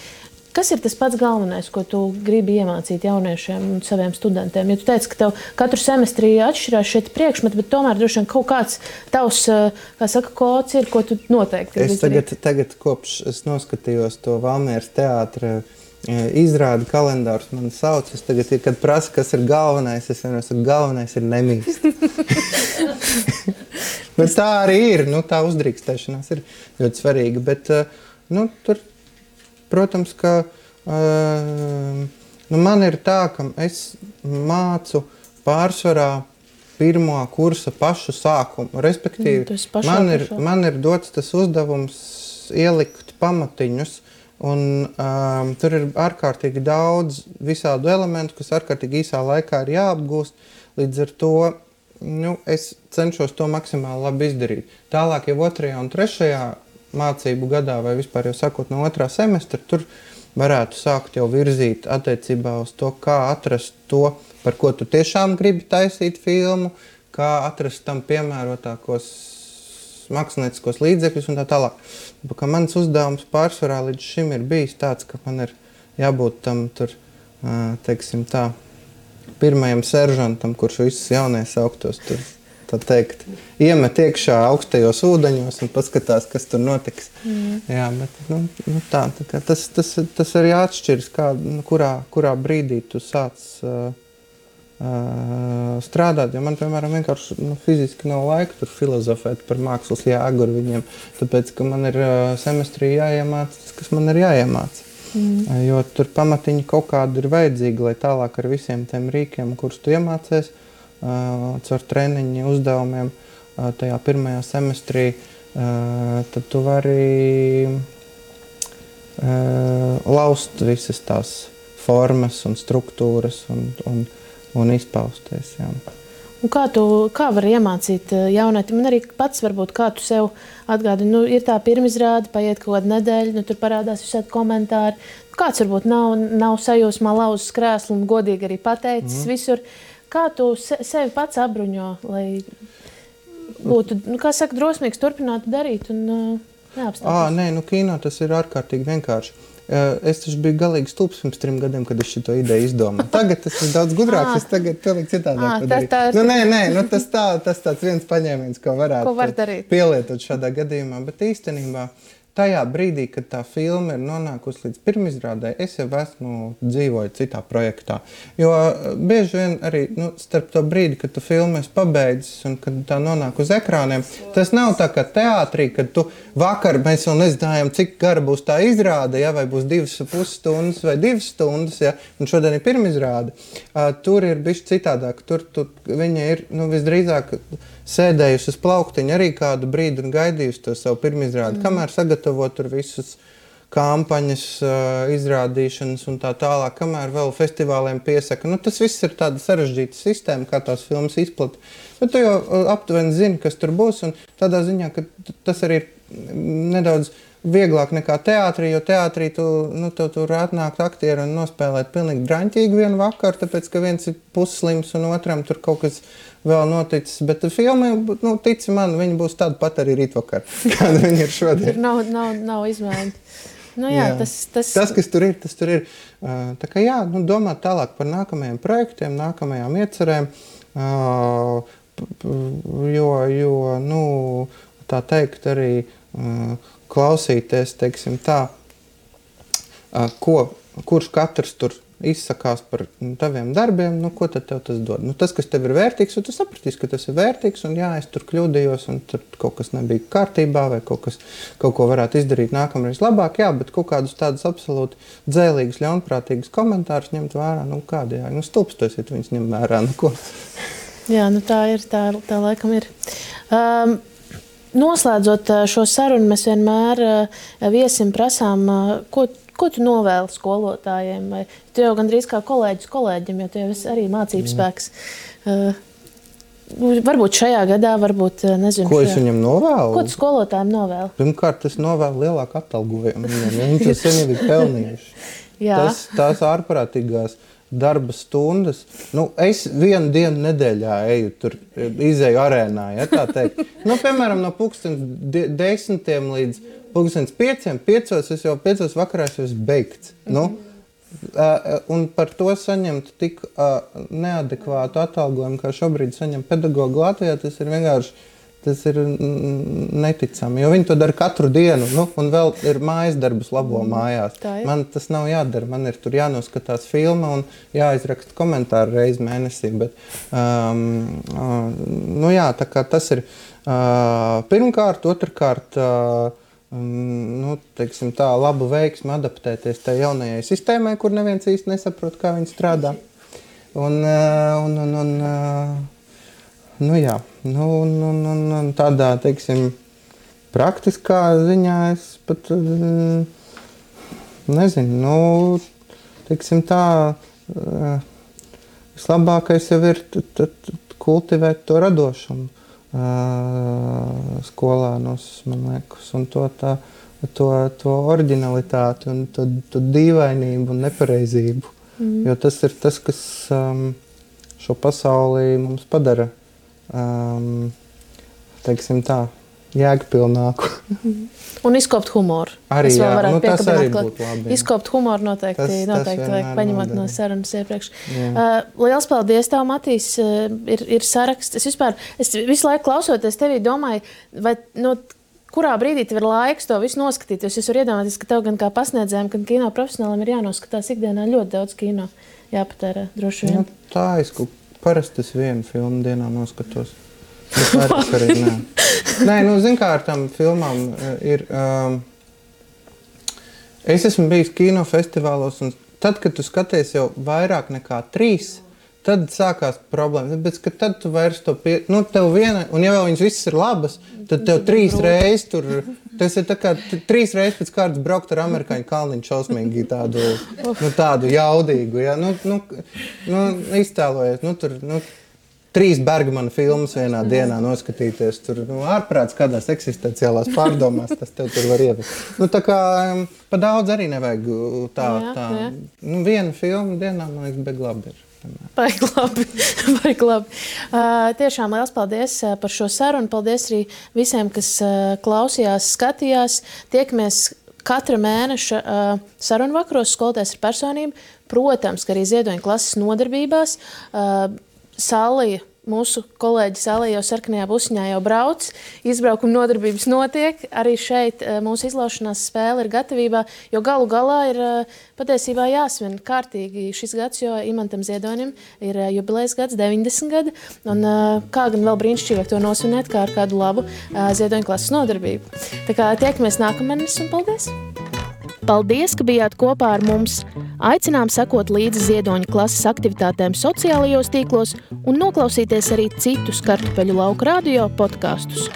Kas ir tas pats galvenais, ko tu gribi iemācīt jauniešiem un saviem studentiem? Ja tu teici, ka tev katru semestri atšķirās šeit priekšmeti, bet tomēr droši vien kaut kāds tavs, kā saka, kods ir, ko tu noteikti gribi izdarīt. Tagad kopš es noskatījos to Valmieras teātra izrādi kalendārus, man sauc, es tagad, kad prasa, kas ir galvenais, es vienmēr saku, galvenais ir nemīst. Bet tā arī ir, tā uzdrīkstēšanās ir ļoti svarīga, bet, tur protams, ka man ir tā, ka es mācu pārsvarā pirmo kursa pašu sākumu. Respektīvi, man ir dots tas uzdevums ielikt pamatiņus, un tur ir ārkārtīgi daudz visādu elementu, kas ārkārtīgi īsā laikā ir jāapgūst. Līdz ar to es cenšos to maksimāli labi izdarīt. Tālāk jau 2. un 3. mācību gadā vai vispār jau sākot no 2. semestra, tur varētu sākt jau virzīt attiecībā uz to, kā atrast to, par ko tu tiešām gribi taisīt filmu, kā atrast tam piemērotākos mākslinieciskos līdzekļus un tā tālāk. Kā mans uzdevums pārsvarā līdz šim ir bijis tāds, ka man ir jābūt tam tur, teiksim tā, pirmajam seržantam, kurš visus jaunies augtos tur, tā teikt, iemet iekšā augstajos ūdeņos un paskatās, kas tur notiks. Jā, bet tas arī atšķiras, kurā brīdī tu sāc strādāt, jo man, piemēram, vienkārši fiziski nav laika tur filozofēt par mākslas jēgu ar viņiem, tāpēc, ka man ir semestrī jāiemāc tas, kas man ir jāiemāc. Jo tur pamatiņi kaut kādi ir vajadzīgi, lai tālāk ar visiem tiem rīkiem, kurus tu iemācies, caur treniņu uzdevumiem tajā pirmajā semestrī, tad tu vari laust visas tās formas un struktūras un izpausties. Jā. Un kā var iemācīt jaunietim? Un arī pats varbūt, kā tu sev atgādini, ir tā pirmizrāde, paiet kaut kāda nedēļa, tur parādās visādi komentāri. Kāds varbūt nav sajūsmā lauzis krēslu un godīgi arī pateicis visur. Kā tu sevi pats apbruņo, lai būtu, kā saka, drosmīgs turpināt darīt un neapstāties? Nē, kino tas ir ārkārtīgi vienkārši. Es taču biju galīgi stulbs pirms 3 gadiem, kad es šito ideju izdomāju. Tagad tas ir daudz gudrāks, es tagad pilnīgi citādāk padarīju. Tas tāds viens paņēmiens, ko varētu pielietot šādā gadījumā, bet īstenībā tajā brīdī, kad tā filma ir nonākusi līdz pirmizrādē, es jau esmu dzīvoju citā projektā. Jo bieži vien arī starp to brīdi, kad tu filmu esi pabeidzis un kad tā nonāk uz ekrāniem, tas nav tā kā teātrī, kad tu vakar mēs vēl nezinājām, cik gara būs tā izrāde, ja, vai būs 2,5 stundas vai 2 stundas, ja, un šodien ir pirmizrāde. Tur ir bišķi citādāk. Tur viņa ir visdrīzāk sēdējusi uz plauktiņa arī kādu brīdi un gaidījusi to savu pirmizrādi, kamēr sagatavo tur visus kampaņas, izrādīšanas un tā tālāk, kamēr vēl festivāliem piesaka. Tas viss ir tāda sarežģīta sistēma, kā tās filmas izplata. Bet tu jau aptuveni zini, kas tur būs, un tādā ziņā, ka tas arī ir nedaudz vieglāk nekā teātrī, jo teātrī tev tur atnākt aktieri un nospēlēt pilnīgi draņķīgi vienu vakaru, tāpēc, ka viens ir pusslims un otram tur kaut kas vēl noticis. Bet filma, tici man, viņa būs tāda pat arī rītvakar, kāda viņa ir šodien. Nav izmaiņa. Jā. Tas, kas tur ir, tas tur ir. Tā kā domāt tālāk par nākamajiem projektiem, nākamajām iecerēm, jo tā teikt arī klausīties, teiksim tā, kurš katrs tur izsakās par taviem darbiem, ko tad tev tas dod? Tas, kas tev ir vērtīgs, un tu sapratīsi, ka tas ir vērtīgs, un es tur kļūdījos, un tur kaut kas nebija kārtībā, vai kaut ko varētu izdarīt nākamreiz labāk, bet kaut kādus tādus absolūti dzēlīgus, ļaunprātīgus komentārus ņemt vērā, kādi, stulbstosiet viņus ņem vērā, ko. Jā, tā ir, tā laikam ir. Noslēdzot šo sarunu, mēs vienmēr viesim prasām, ko tu novēli skolotājiem? Vai tu jau gandrīz kā kolēģis kolēģim, jo tu jau esi arī mācības spēks. Varbūt šajā gadā, varbūt, nezinu. Ko es viņam novēlu? Ko tu skolotājiem novēli? Pirmkārt, es novēlu lielāku atalgojumu. Viņi to sen jau ir pelnījuši. Tās ārprātīgās darba stundas. Es vienu dienu nedēļā izēju arēnā, ja tā teikt. Piemēram, no 10 līdz 5 es jau 5 vakarā esmu beigts. Un par to saņemt tik neadekvātu atalgojumu, kā šobrīd saņem pedagogi Latvijā, tas ir vienkārši neticami. Jo viņi to dara katru dienu, un vēl ir mājas darbus labo mājās. Man tas nav jādara, man ir tur jānoskatās filma un jāizraksta komentāri reizi mēnesī. Bet, tā kā tas ir pirmkārt, otrkārt, teiksim tā, labu veiksmi adaptēties tai jaunajai sistēmai, kur neviens īsti nesaprot, kā viņi strādā. Tādā, teiksim, praktiskā ziņā es pat nezinu, teiksim tā, vislabākais jau ir kultivēt to radošumu skolānos, man liekas, un to oriģinalitāti un to dīvainību un nepareizību. Jo tas ir tas, kas šo pasauli mums padara, teiksim tā, jēgpilnāku. Un izkopt humoru. Arī, tas arī būtu labi. Izkopt humoru noteikti vajag paņemot no sarunas iepriekš. Liels paldies tev, Matīs. Ir saraksts. Es visu laiku klausoties tevī domāju, vai kurā brīdī tev ir laiks to visu noskatīties. Es varu iedomāties, ka tev gan kā pasniedzējiem, gan kino profesionālim ir jānoskatās ikdienā ļoti daudz kino. Jāpatērē, droši vien. Tā parasti es vienu filmu dienā noskatos. Bet arī nē. Nē, zin kā ar tām filmām ir... Es esmu bijis kinofestivālos, un tad, kad tu skaties jau vairāk nekā 3, tad sākās problēmas. Bet, ka tad tu vairs to tev viena, un ja vēl viņas visas ir labas, tad tev 3 reizes tur... Tas ir tā kā 3 reizes pēc kārtas braukt ar amerikāņu kalniņu šausmīgi tādu jaudīgu. Ja? Iztēlojies, tur... 3 Bergmana filmas vienā dienā noskatīties, tur ārprāts kādās eksistenciālās pārdomās, tas tev tur var ievest. Tā kā pa daudz arī nevajag tā. Viena filma dienā, man liekas, bet labi ir. Baigi labi. Tiešām liels paldies par šo sarunu. Paldies arī visiem, kas klausījās, skatījās. Tiekamies katra mēneša sarunu vakaros Skolotājs ar personību. Protams, ka arī ziedoņa klases nodarbībās. Sallija mūsu kolēģi Sālē jau sarkanajā busiņā jau brauc, izbraukuma nodarbības notiek, arī šeit mūsu izlaušanās spēle ir gatavībā, jo galu galā ir patiesībā jāsvin kārtīgi šis gads, jo Imantam Ziedonim ir jubilejas gads, 90 gadi, un kā gan vēl brīnišķīgāk to nosvinēt, kā ar kādu labu Ziedoņa klases nodarbību. Tā kā tiekamies nākamēnes un paldies! Paldies, ka bijāt kopā ar mums! Aicinām sekot līdzi Ziedoņa klases aktivitātēm sociālajos tīklos un noklausīties arī citus Kartupeļu lauka radio podkastus.